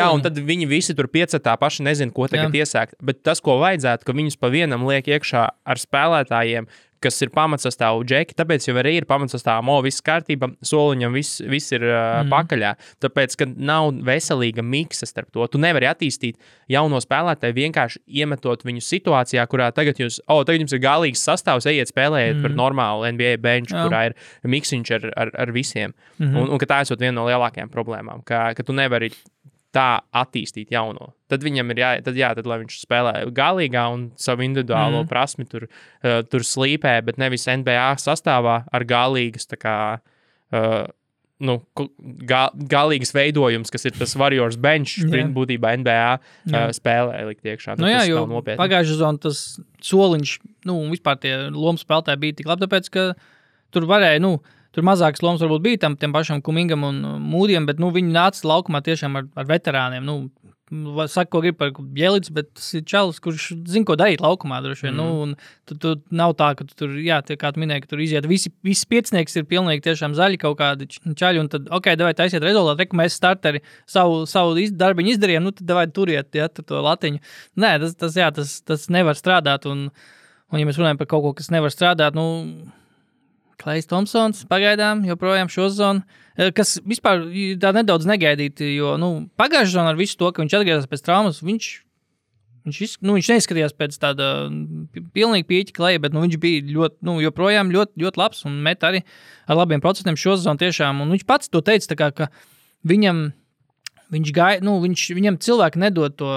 un tad viņi visi tur piecetā paši nezin, ko tagad iesākt. Bet tas, ko vajadzētu, ka viņus pa vienam liek iekšā ar spēlētājiem, kas ir pamatsastāvu džeki, tāpēc jau arī ir pamatsastāvu, viss kārtība, soliņam viss ir pakaļā. Tāpēc, ka nav veselīga miksa starp to. Tu nevari attīstīt jauno spēlētāju vienkārši iemetot viņu situācijā, kurā tagad jums ir galīgs sastāvs, ejiet spēlējiet par normālu NBA bench, kurā ir miksiņš ar visiem. Un ka tā esot viena no lielākajām problēmām, ka tu nevari tā attīstīt jauno. Tad viņam ir tad lai viņš spēlē galīgā un savu individuālo prasmi tur slīpē, bet nevis NBA sastāvā ar galīgas galīgas veidojums, kas ir tas Warriors bench, būtībā NBA spēlē likt iekšā. Jo pagājušā sezonā tas soliņš, vispār tie lomu spēlētāji bija tik labi, tāpēc, ka tur varēja, tur mazākas lomas varbūt bija tiem pašam Kumingam un Mūdiem, bet viņi nāca laukumā tiešām ar veterāniem. Saka, ko grib par Bjelīcu, bet tas ir čalis, kurš zina, ko darīt laukumā droši vien. Un tu nav tā, ka tu tur, kā tu minēji, ka tur iziet visi piecinieks ir pilnīgi tiešām zaļi kaut kādi čaļi, un tad, ok, davai taisiet rezultātu, reku mēs starteri savu darbiņu izdarījām, tad davai turiet, tur to latiņu. Nē, tas nevar strādāt, un ja mēs runājam par kaut ko, kas nevar strādāt, Klejs Thompsons pagaidām joprojām šo sezonu, kas vispār tā nedaudz negaidīti, jo pagājušā sezonā ar visu to, ka viņš atgriezās pēc traumas, viņš neizskatījās pēc tāda pilnīgi pieķa Kleja, bet viņš bija ļoti, joprojām ļoti, ļoti labs un met arī ar labiem procentiem šo sezonu tiešām. Un viņš pats to teica, ka viņam viņam cilvēki nedod to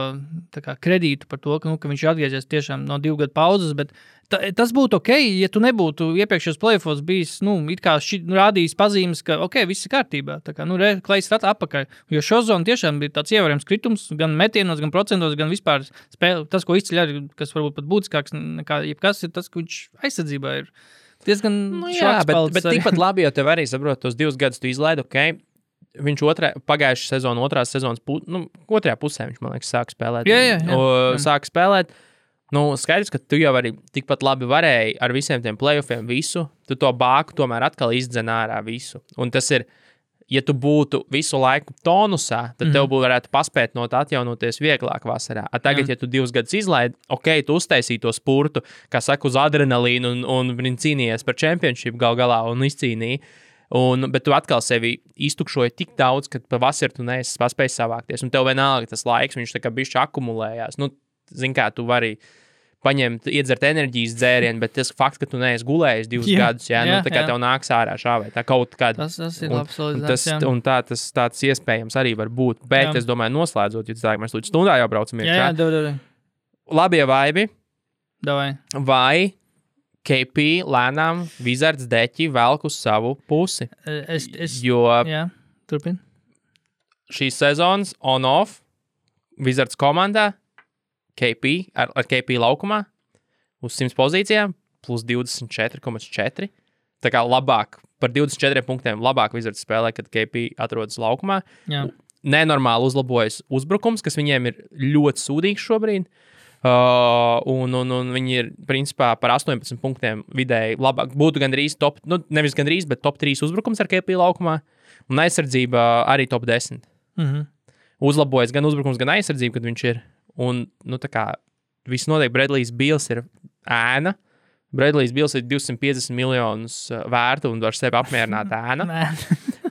kredītu par to, ka viņš ir atgriezies tiešām no 2 gadu pauzes, bet tas būtu ok, ja tu nebūtu iepriekšējos playoffos bijis, it kā rādījis pazīmes, ka ok, viss ir kārtībā. Tā kā, Klejs ir atpakaļ. Jo šo zonu tiešām bija tāds ievērojams kritums, gan metienos, gan procentos, gan vispār spēle. Tas, ko izceļ arī, kas varbūt pat būtiskāks nekā jebkas, ir tas, ka viņš aizsardzībā ir diezgan bet tikpat labi, jo tev arī saprot, tos 2 gadus tu izlaidi, viņš pagājušā sezona, otrās sezonas, otrajā pusē viņš, man liekas, sāka spēlēt. Sāka spēlēt. Skaidrs, ka tu jau arī tikpat labi varēji ar visiem tiem playoffiem visu, tu to bāku tomēr atkal izdzen ārā visu. Un tas ir, ja tu būtu visu laiku tonusā, tad tev varētu paspēt no tā atjaunoties vieglāk vasarā. Tagad, ja tu 2 gadus izlaidi, tu uztaisīji to spurtu, kā saka, uz adrenalīnu un cīnījies par championship galā un izcīnīji. Bet tu atkal sevi iztukšoji tik daudz, ka pavasarī tu neesi paspējis savākties. Un tev vienalga tas laiks, viņš tā kā bišķi akumulējās. Zini kā, tu vari paņemt, iedzert enerģijas dzērienu, bet tas fakts, ka tu neesi gulējis 2 gadus, tā kā tev nāks ārā šāvēt. Tā kaut kāda. Tas ir labs solidizāts. Un tāds iespējams arī var būt. Bet es domāju, noslēdzot, jo tā, mēs līdz stundā jau braucam iekšā. Jā. Labie vaibi. Davai. Vai KP lēnām Wizards deķi velk uz savu pusi. Jo turpin. Šīs sezonas on-off Wizards komandā KP ar KP laukumā uz 100 pozīcijām plus 24,4. Tā kā labāk, par 24 punktiem labāk Wizards spēlē, kad KP atrodas laukumā. Jā. Nenormāli uzlabojas uzbrukums, kas viņiem ir ļoti sūdīgs šobrīd. Un viņi ir principā par 18 punktiem vidēji labāk. Būtu gandrīz top, nevis gandrīz, bet top 3 uzbrukums ar KP laukumā. Un aizsardzība arī top 10. Uzlabojas gan uzbrukums, gan aizsardzība, kad viņš ir. Un, tā kā viss notiek, Bradley's Beals ir ēna. Bradley's Beals ir 250 miljonus vērta un var sevi apmierināt ēna.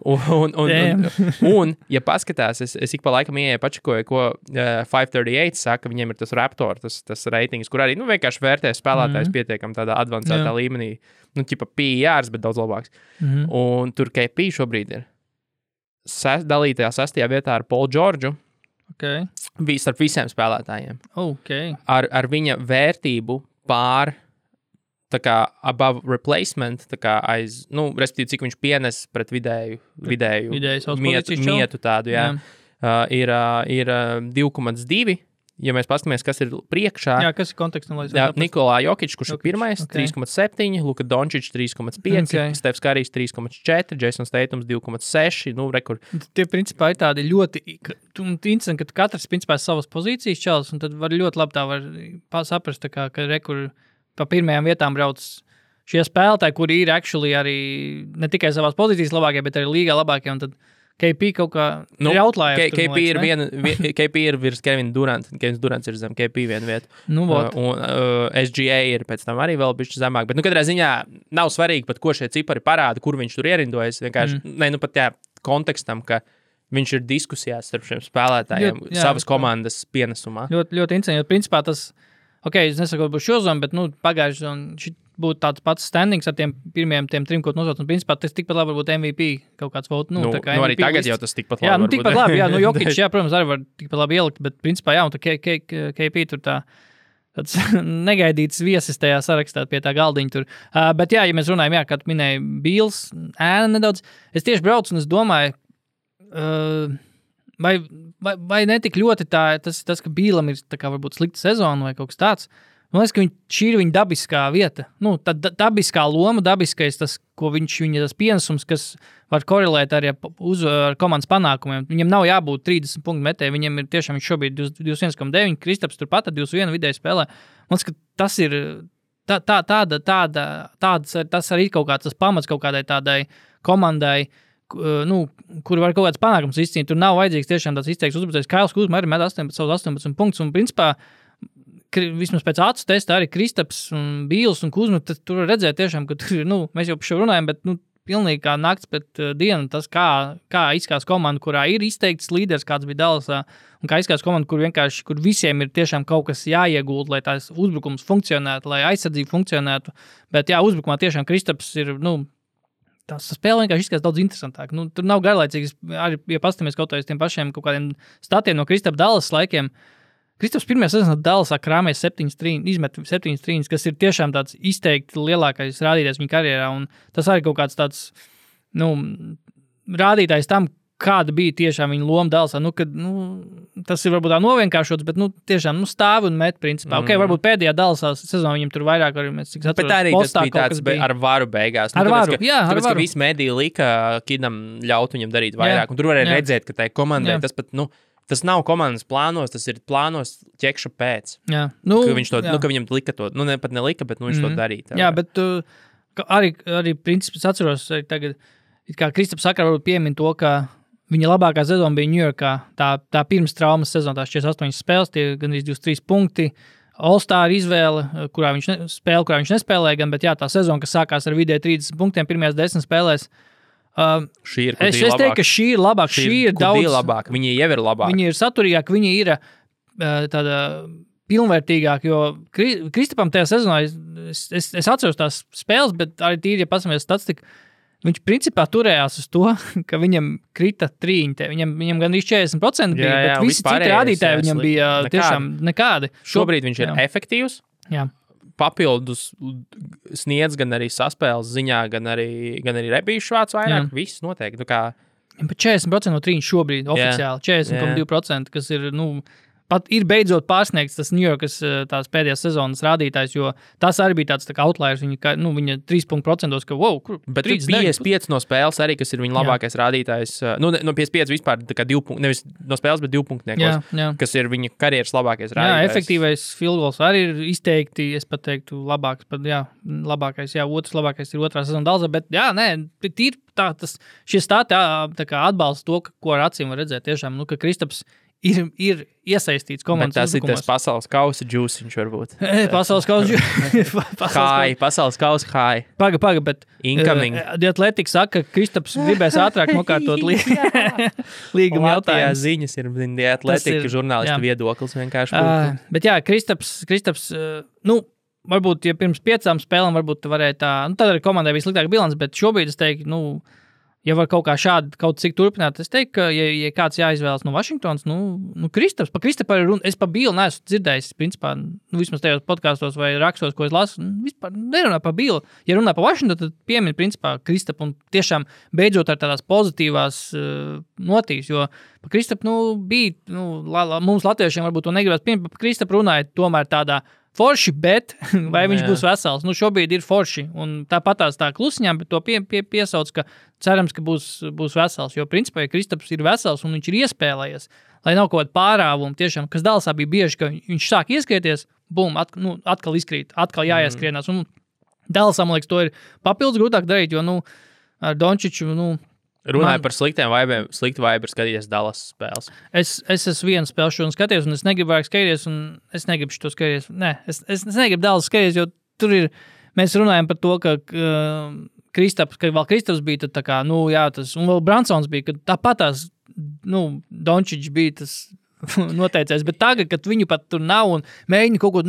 Un, ja paskatās, es ik pa laikam ieeju pačakoju, ko 538 saka, viņiem ir tas Raptor, tas reitings, kur arī, vienkārši vērtē spēlētājs pietiekam tādā advancētā līmenī, ķipa PRs, bet daudz labāks. Un tur KP šobrīd ir dalītajā 6. vietā ar Paul Georgeu, starp visiem spēlētājiem. Ar viņa vērtību pār tā kā above replacement, tā kā respektīvi, cik viņš pienes pret vidēju mietu tādu, ir 2,2. Ja mēs paskatāmies, kas ir priekšā. Jā, kas ir kontekstam? Nikolā Jokić, kurš ir pirmais, 3,7, Luka Dončić 3,5, Stefs Karijs 3,4, Jasons Tatums 2,6, rekur. Tie principā ir tādi ļoti interesanti, ka katrs principā savas pozīcijas čels, un tad var ļoti labi tā var saprast, ka rekur pa pirmajām vietām brauc šie spēlētāji, kuri ir actually arī ne tikai savās pozīcijas labākie, bet arī līgā labākie, un tad KP kaut kā ir outliers. KP ir virs Kevina Duranta, Kevins Durants ir zem KP vienu vietu. Un SGA ir pēc tam arī vēl bišķi zemāk, bet katrā ziņā nav svarīgi pat, ko šie cipari parāda, kur viņš tur ierindojas, vienkārši, pat kontekstam, ka viņš ir diskusijās starp šiem spēlētājiem savas komandas pienesumā. Ļoti interesanti, jo principā tas es nesaku, ka būs šo zonu, bet pagājuši zonu būtu tāds pats standings ar tiem pirmajiem tiem 3, ko nosauc. Un principā tas tikpat labi var būt MVP kaut kāds votu. Arī tagad jau tas tikpat labi. Tikpat labi, Jokić, protams, arī var tikpat labi ielikt, bet principā, un tā KP tur tāds negaidīts viesis tajā sarakstā pie tā galdiņa tur. Bet ja mēs runājam, kā tu minēji, Beals, ēna nedaudz, es tieši braucu un es domāju, vai netik ļoti tas, ka Bīlam ir tā kā varbūt slikta sezona vai kaut kas tāds. Man liekas, ka šī ir viņa dabiskā vieta. Tā dabiskā loma, dabiskais tas, ko viņa tas pienesums, kas var korelēt arī ar komandas panākumiem. Viņam nav jābūt 30 punktu metēji, viņam ir tiešām viņš šobrīd 21,9, Kristaps turpat ar 21 vidēji spēlē. Man liekas, ka tas ir tas arī kaut kāds tas pamats kaut kādai tādai komandai, kur var kaut kāds panākums izcīnīt. Tur nav vajadzīgs tiešām tāds izteikts uzbrucējs. Kails Kuzma arī met 18 punktus, un principā vismaz pēc acu testa arī Kristaps un Bīls un Kuzma, tur var redzēt tiešām, ka tur, mēs jau par šo runājam, bet pilnīgi kā nakts pēc dienu, tas kā izskās komanda, kurā ir izteikts līderis, kāds bija Dallasā, un kā izskās komanda, kur visiem ir tiešām kaut kas jāiegūt, lai tās uzbrukums funkcionētu, lai aizsardzība funkcionētu, bet uzbrukumā tiešām Kristaps ir, tas spēle vienkārši izskatās daudz interesantāk. Tur nav garlaicīgs, arī, ja pastamies kaut tiem pašiem kaut kādiem statiem no Kristapa Dallas laikiem. Kristaps pirmajā sezonā Dallasā krāmēja 7 trīņus, kas ir tiešām tāds izteikti lielākais rādītājs viņa karjerā, un tas arī kaut kāds tāds, rādītājs tam, kāda bija tiešām viņa loma Dallasā. Tas ir varbūt tā novienkāršots, bet tiešām stāv un met principā. Varbūt pēdējā Dallasā sezonā viņam tur vairāk arī mēs cik atceros. Bet arī tas bija tāds ar varu beigās. Ar varu, tāpēc, ka visi mediji lika Kidam ļaut viņam darīt vairāk. Un tur varēja redzēt, ka tai komandai tas pat, tas nav komandas plānos, tas ir plānos ķekša pēc. Jā. Ka viņš to, ka viņam lika to, pat nelika, bet viņš to darīja. Jā, bet arī principā atceros arī tagad, kā Kristaps Sakara varbūt piemin to, ka viņa labākā sezona bija Ņujorkā, tā pirms traumas sezona, tās 48 spēles, tie gandrīz 23 punkti, All-Star izvēle, kurā viņš nespēlēja gan, bet jā, tā sezona, kas sākās ar vidēji 30 punktiem pirmajās 10 spēlēs, es teiktu, ka šī ir labāka, šī ir daudz labāka, viņa jau ir labāka. Viņa ir saturīgāka, viņa ir tāda pilnvērtīgāka, jo Kristapam tajā sezonā, es atceros tās spēles, bet arī tīri, ja pasamies statistiku, viņš principā turējās uz to, ka viņam krita trīņi. Viņam gandrīz 40% bija, bet visi citi rādītāji viņam bija tiešām nekādi. Šobrīd viņš ir efektīvs. Jā. Papildus sniedz gan arī saspēles ziņā, gan arī rebīšu vāc vairāk. Viss noteikti. Bet 40% no trīņu šobrīd oficiāli. 40,2%, kas ir, pat ir beidzot pārsniegts tas Ņujorkas tās pēdējās sezonas rādītājs, jo tas arī bija tāds tā kā outliers, viņa 3%, ka kur bet 55 no spēles arī, kas ir viņa labākais rādītājs, no 55 vispār tā kā 2 punkti, nevis no spēles, bet 2 punktniekos, kas ir viņa karjeras labākais rādītājs. Jā, efektīvais field goals arī ir izteikti, es pat teiktu, labāks, labākais, otrs labākais ir otrā sezona Dallasā, bet tīri šie stāti tā kā atbalsta to, ko ar acīm var redzēt tiešām, ka Kristaps ir iesaistīts komandas uzbrukumos. Bet tas ir tas pasaules kausa džūsiņš varbūt. Pasaules kausa high, pasaules kausa high. Paga, bet incoming. The Athletic saka, ka Kristaps gribēs ātrāk nokārtot līguma jautājumus. Ziņas ir The Athletic žurnālistu viedoklis vienkārši. Bet jā, Kristaps, varbūt, ja pirms 5 spēlēm varbūt varēja tā, tad arī komandai bija sliktāka bilance, bet šobrīd es teiktu, ja var kaut kā šādi kaut cik turpināt, es teiktu, ka, ja kāds jāizvēlas no Vašingtons, Kristaps, pa Kristapa ir runa, es pa Bilu neesmu dzirdējis, principā, vismaz tajos podkastos vai rakstos, ko es lasu, vispār nerunā pa Bilu. Ja runā pa Vašingtonu, tad piemin, principā, Kristapu un tiešām beidzot ar tādās pozitīvās notīs, jo pa Kristapu, bija, mums latviešiem varbūt to negribas piemin, pa Kristapu runāja tomēr tādā forši, bet vai viņš būs vesels? Šobrīd ir forši, un tāpatās tā klusiņām, bet to piesauc, ka cerams, ka būs vesels, jo principā, ja Kristaps ir vesels un viņš ir iespēlējies, lai nav kaut kāda pārāvuma, tiešām, kas Dallasā bija bieži, ka viņš sāk ieskrieties, bum, atkal izkrīt, atkal jāieskrienās, un Dallasā, man liekas, to ir papildus grūtāk darīt, jo, ar Dončiču, runāju par sliktu vaibu skatīties Dallas spēles. Es esmu vienu spēli šodien skatījies, un es negribu vairāk skatīties, un es negribu šo skatīties. Nē, es negribu Dallas skatīties, jo tur ir, mēs runājam par to, ka Kristaps bija tad tā kā, tas, un vēl Bransons bija, ka tāpatās, Dončičs bija tas noteicējis, bet tagad, kad viņu pat tur nav un mēģina kaut ko,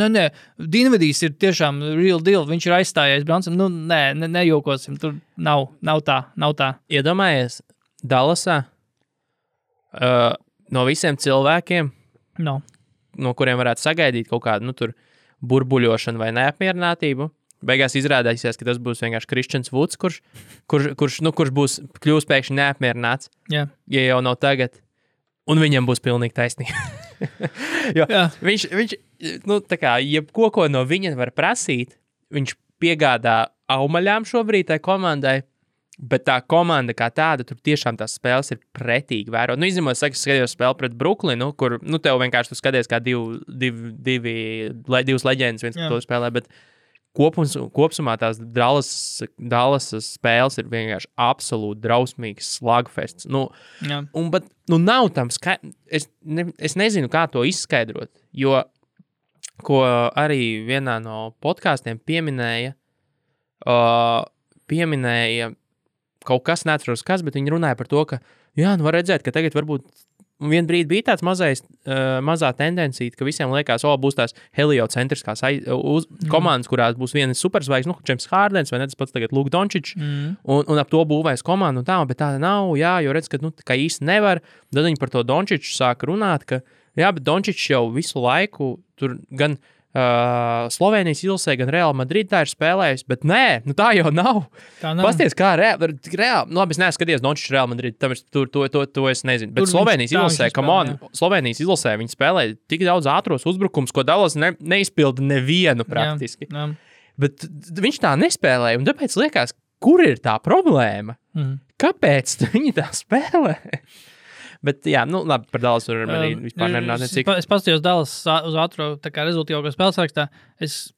Dinvidijs ir tiešām real deal, viņš ir aizstājies Branson, nejokosim, tur nav tā. Iedomājies, Dallasā no visiem cilvēkiem, no kuriem varētu sagaidīt kaut kādu, tur burbuļošanu vai neapmierinātību, beigās izrādīsies, ka tas būs vienkārši Kristians Vuds, kurš būs kļūst pēkšņi neapmierināts, ja jau nav tagad. Un viņam būs pilnīgi taisnība. Jo viņš tā kā, ko no viņa var prasīt, viņš piegādā aumaļām šobrīd tai komandai, bet tā komanda kā tāda, tur tiešām tās spēles ir pretīgi vērot. Izņemot, es skatījos spēli pret Brooklynu, kur, tev vienkārši tu skaties kā divas leģendas viens to spēlē, bet kopsumā tās Dallas spēles ir vienkārši absolūti drausmīgs slagfests. Bet nav tam es nezinu, kā to izskaidrot, jo, ko arī vienā no podkāstiem pieminēja kaut kas, neatceros kas, bet viņi runāja par to, ka, var redzēt, ka tagad varbūt vien brīdi bija tāds mazā tendencija, ka visiem liekas, būs tās heliocentriskās komandas, kurās būs viena superzvaigzne, James Hardens vai ne, tas pats tagad Luka Dončičs, un ap to būvēs komandu un tā, bet tāda nav, jo redz, ka, ka īsti nevar. Tad viņi par to Dončiču sāka runāt, ka, bet Dončičs jau visu laiku tur gan Slovenijas izlasē gan Real Madrid tā ir spēlējusi, bet nē, tā jau nav. Pasties, kā reāli, labi, es neskaties Dončičs Real Madrid, to es nezinu, bet Slovenijas izlasē, Slovenijas izlasē viņi spēlē tik daudz ātros uzbrukums, ko Dallas neizpilda nevienu praktiski. Jā. Bet viņš tā nespēlēja, un tāpēc liekas, kur ir tā problēma? Kāpēc viņi tā spēlē? Bet, jā, labi, par Dallas varam arī vispār nerunāt necik. Es paskatījos Dallas uz ātro rezultīvāko spēles rakstā. Tas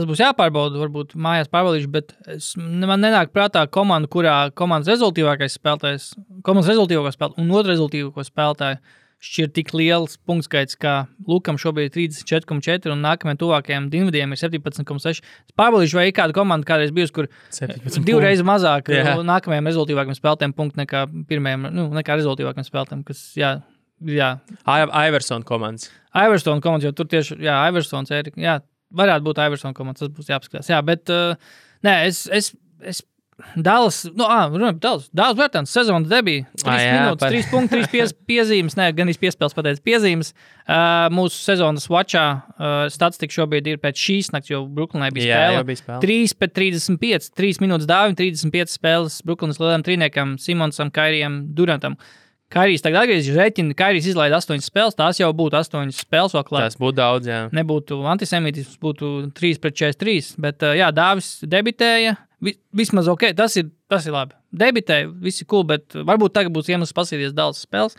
būs jāpārbauda, varbūt mājās pārbaudīšu, bet man nenāk prātā komanda, kurā komandas rezultīvākais spēlētājs, komandas rezultīvāko spēlētāju un otru rezultīvāko spēlētāju šķir tik liels punktskaits, kā Lukam šobrīd ir 34,4 un nākamajiem tuvākajiem Dinvidiem ir 17,6. Es pārbaudīšu, vai ir kāda komanda kādreiz bijusi, kur divreiz mazāk nākamajiem rezultīvākiem spēlētājiem punktu nekā pirmajiem, nekā rezultīvākiem spēlētājiem, kas, jā. Iverson komandas. Iverson komandas, jo tur tieši, Iversons, varētu būt Iverson komandas, tas būs jāpaskatās. Jā, bet, nē, es Dallas, Dallas vērtāns sezonas debija. 3 minūtes, 3 punkti, 3 piezīmes, gan piespēles pateicis piezīmes. Mūsu sezonas watchā statistika šobrīd ir pēc šīs nakts, jo Brooklynai bija spēle. 3/35, 3 minūtes dāvim, 35 spēles Brooklynas lielajam trīniekam, Simonsam, Kairijam, Durantam. Kairijs tagad atgriezīsies, rēķina, Kairijs izlaida 8 spēles, tās jau būtu 8 spēles vēl klāt. Tas būtu daudz, jā. Nebūtu antisemītisms, būtu 3/43, bet Dāvis debitēja, vismaz ok, tas ir labi. Debitēja, visi cool, bet varbūt tagad būs iemesls pasīties Dallas spēles,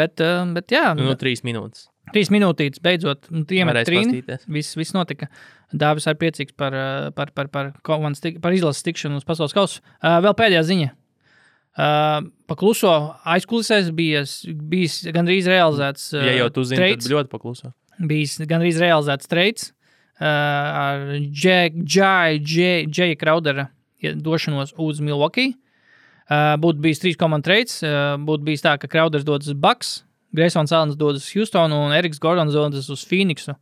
bet jā. 3 minūtes. 3 minūtītes, beidzot, iemet trīni, viss notika. Dāvis ir priecīgs par izlases tikšanu uz pasaules kausu. Vēl pēdējā ziņa. Pakluso aizkulisēs bijis gandrīz realizēts ja jau tu zini, tad ļoti pakluso. Bijis gandrīz realizēts trades ar Jaya Crowdera došanos uz Milwaukee. Būtu bijis 3 komandu trades, būtu bijis tā, ka Crowders dodas uz Bucks, Graysons Allens dodas uz Houstonu un Eriks Gordons dodas uz Phoenixu.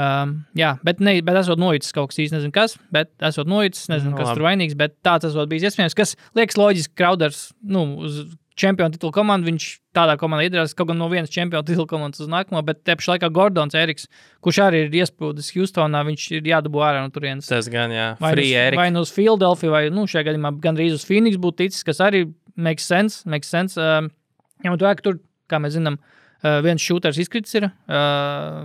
Bet esot noicis kaut kas īsti nezinu kas, bet esot noicis, nezinu, kas tur vainīgs, bet tāds esot bijis iespējams, kas liekas loģiski Crowders, uz čempionu titulu komandu, viņš tādā komandā iedarās kaut gan no vienas čempionu titulu komandas uz nākamo, bet te pašā laikā Gordons Eriks, kurš arī ir iesprūdis Houstonā, viņš ir jādabū ārā no turienes. Tas gan, jā. Vai nu uz Philadelphia, vai, šajā gadījumā gandrīz uz Phoenix būtu ticis, kas arī makes sense. Ņemot vērā, ka tur, kā mēs zinām, viens šūters izkritis ir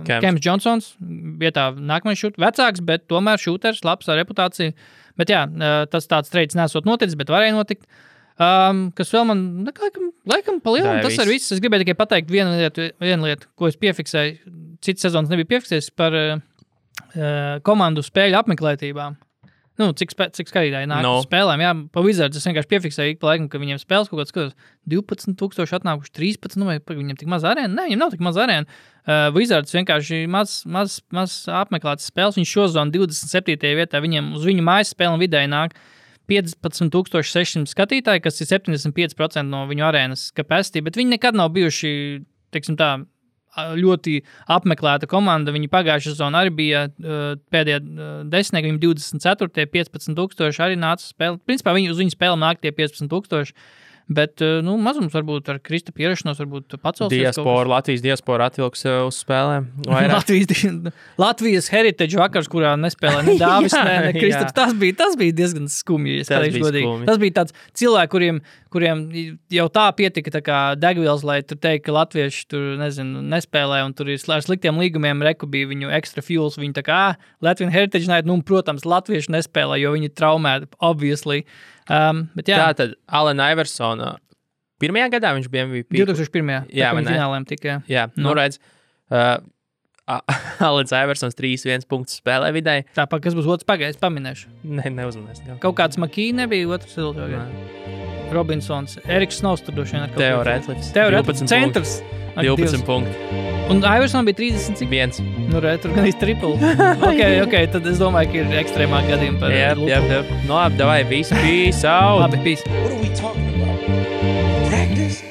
Kems Johnsons, vietā nākamais šūters, vecāks, bet tomēr šūters, labs ar reputāciju. Bet jā, tas tāds trades nesot noticis, bet varēja notikt. Kas vēl man, laikam palielam, tas ir viss. Es gribēju tikai pateikt vienu lietu, ko es piefiksēju, cits sezonas nebija piefiksējis par komandu spēļu apmeklētībām. Cik skatītāji nāk spēlēm, jā, pa Wizards es vienkārši piefiksēju ik pa laikam, ka viņiem spēles kaut kāds skatos 12,000 atnākuši, 13, vai viņiem tik maz arēna? Nē, viņiem nav tik maz arēna. Wizards vienkārši maz apmeklētas spēles, viņš šozonu 27. vietā, viņiem uz viņu mājas spēli vidēji nāk 15,600 skatītāji, kas ir 75% no viņu arēnas capacity, bet viņi nekad nav bijuši, teiksim tā, ļoti apmeklēta komanda. Viņi pagājušā sezonā arī bija pēdējā desmitnieki, viņi 24. 15,000 arī nāca spēlēt. Principā uz viņu spēlēm nāk tie 15,000. Bet, mazums varbūt ar Krista pierašanos varbūt pacelsies. Latvijas diaspora atvilks uz spēlēm. Latvijas heritage vakars, kurā nespēlē ne Dāvis, ne Kristaps. Tas bija diezgan skumji. Tas bija tāds cilvēki, kuriem jau tā pietika tā kā degvielas, lai tur teikt, ka latvieši tur, nespēlē un tur ir ar sliktiem līgumiem reku bija viņu extra fuels. Viņi tā kā, Latvian heritage night, protams, latvieši nespēlē, jo viņi traumēti, obviously. Bet jā. Tātad Allen Iversona pirmajā gadā viņš bija MVP. 2001. Jā, finālēm tikai. Jā, redz. Allen Iversons 3-1 punktus spēlē vidēji. Tāpēc, kas būs otrs pagājis, paminēšu. Neuzmanēs. Kaut kāds Makī nebija otrs Robinsons. Eriks Snows tur droši vien ar kaut Teo Redlifs. Centrs. 12 punkti. Un Iverson bija 30 cik? 1. Tur gan īsti triple. ok, tad es domāju, ka ir ekstrēmāk gadījumi par Yep. Labi, davai, peace out. Labi, peace. What are we talking about? Practice?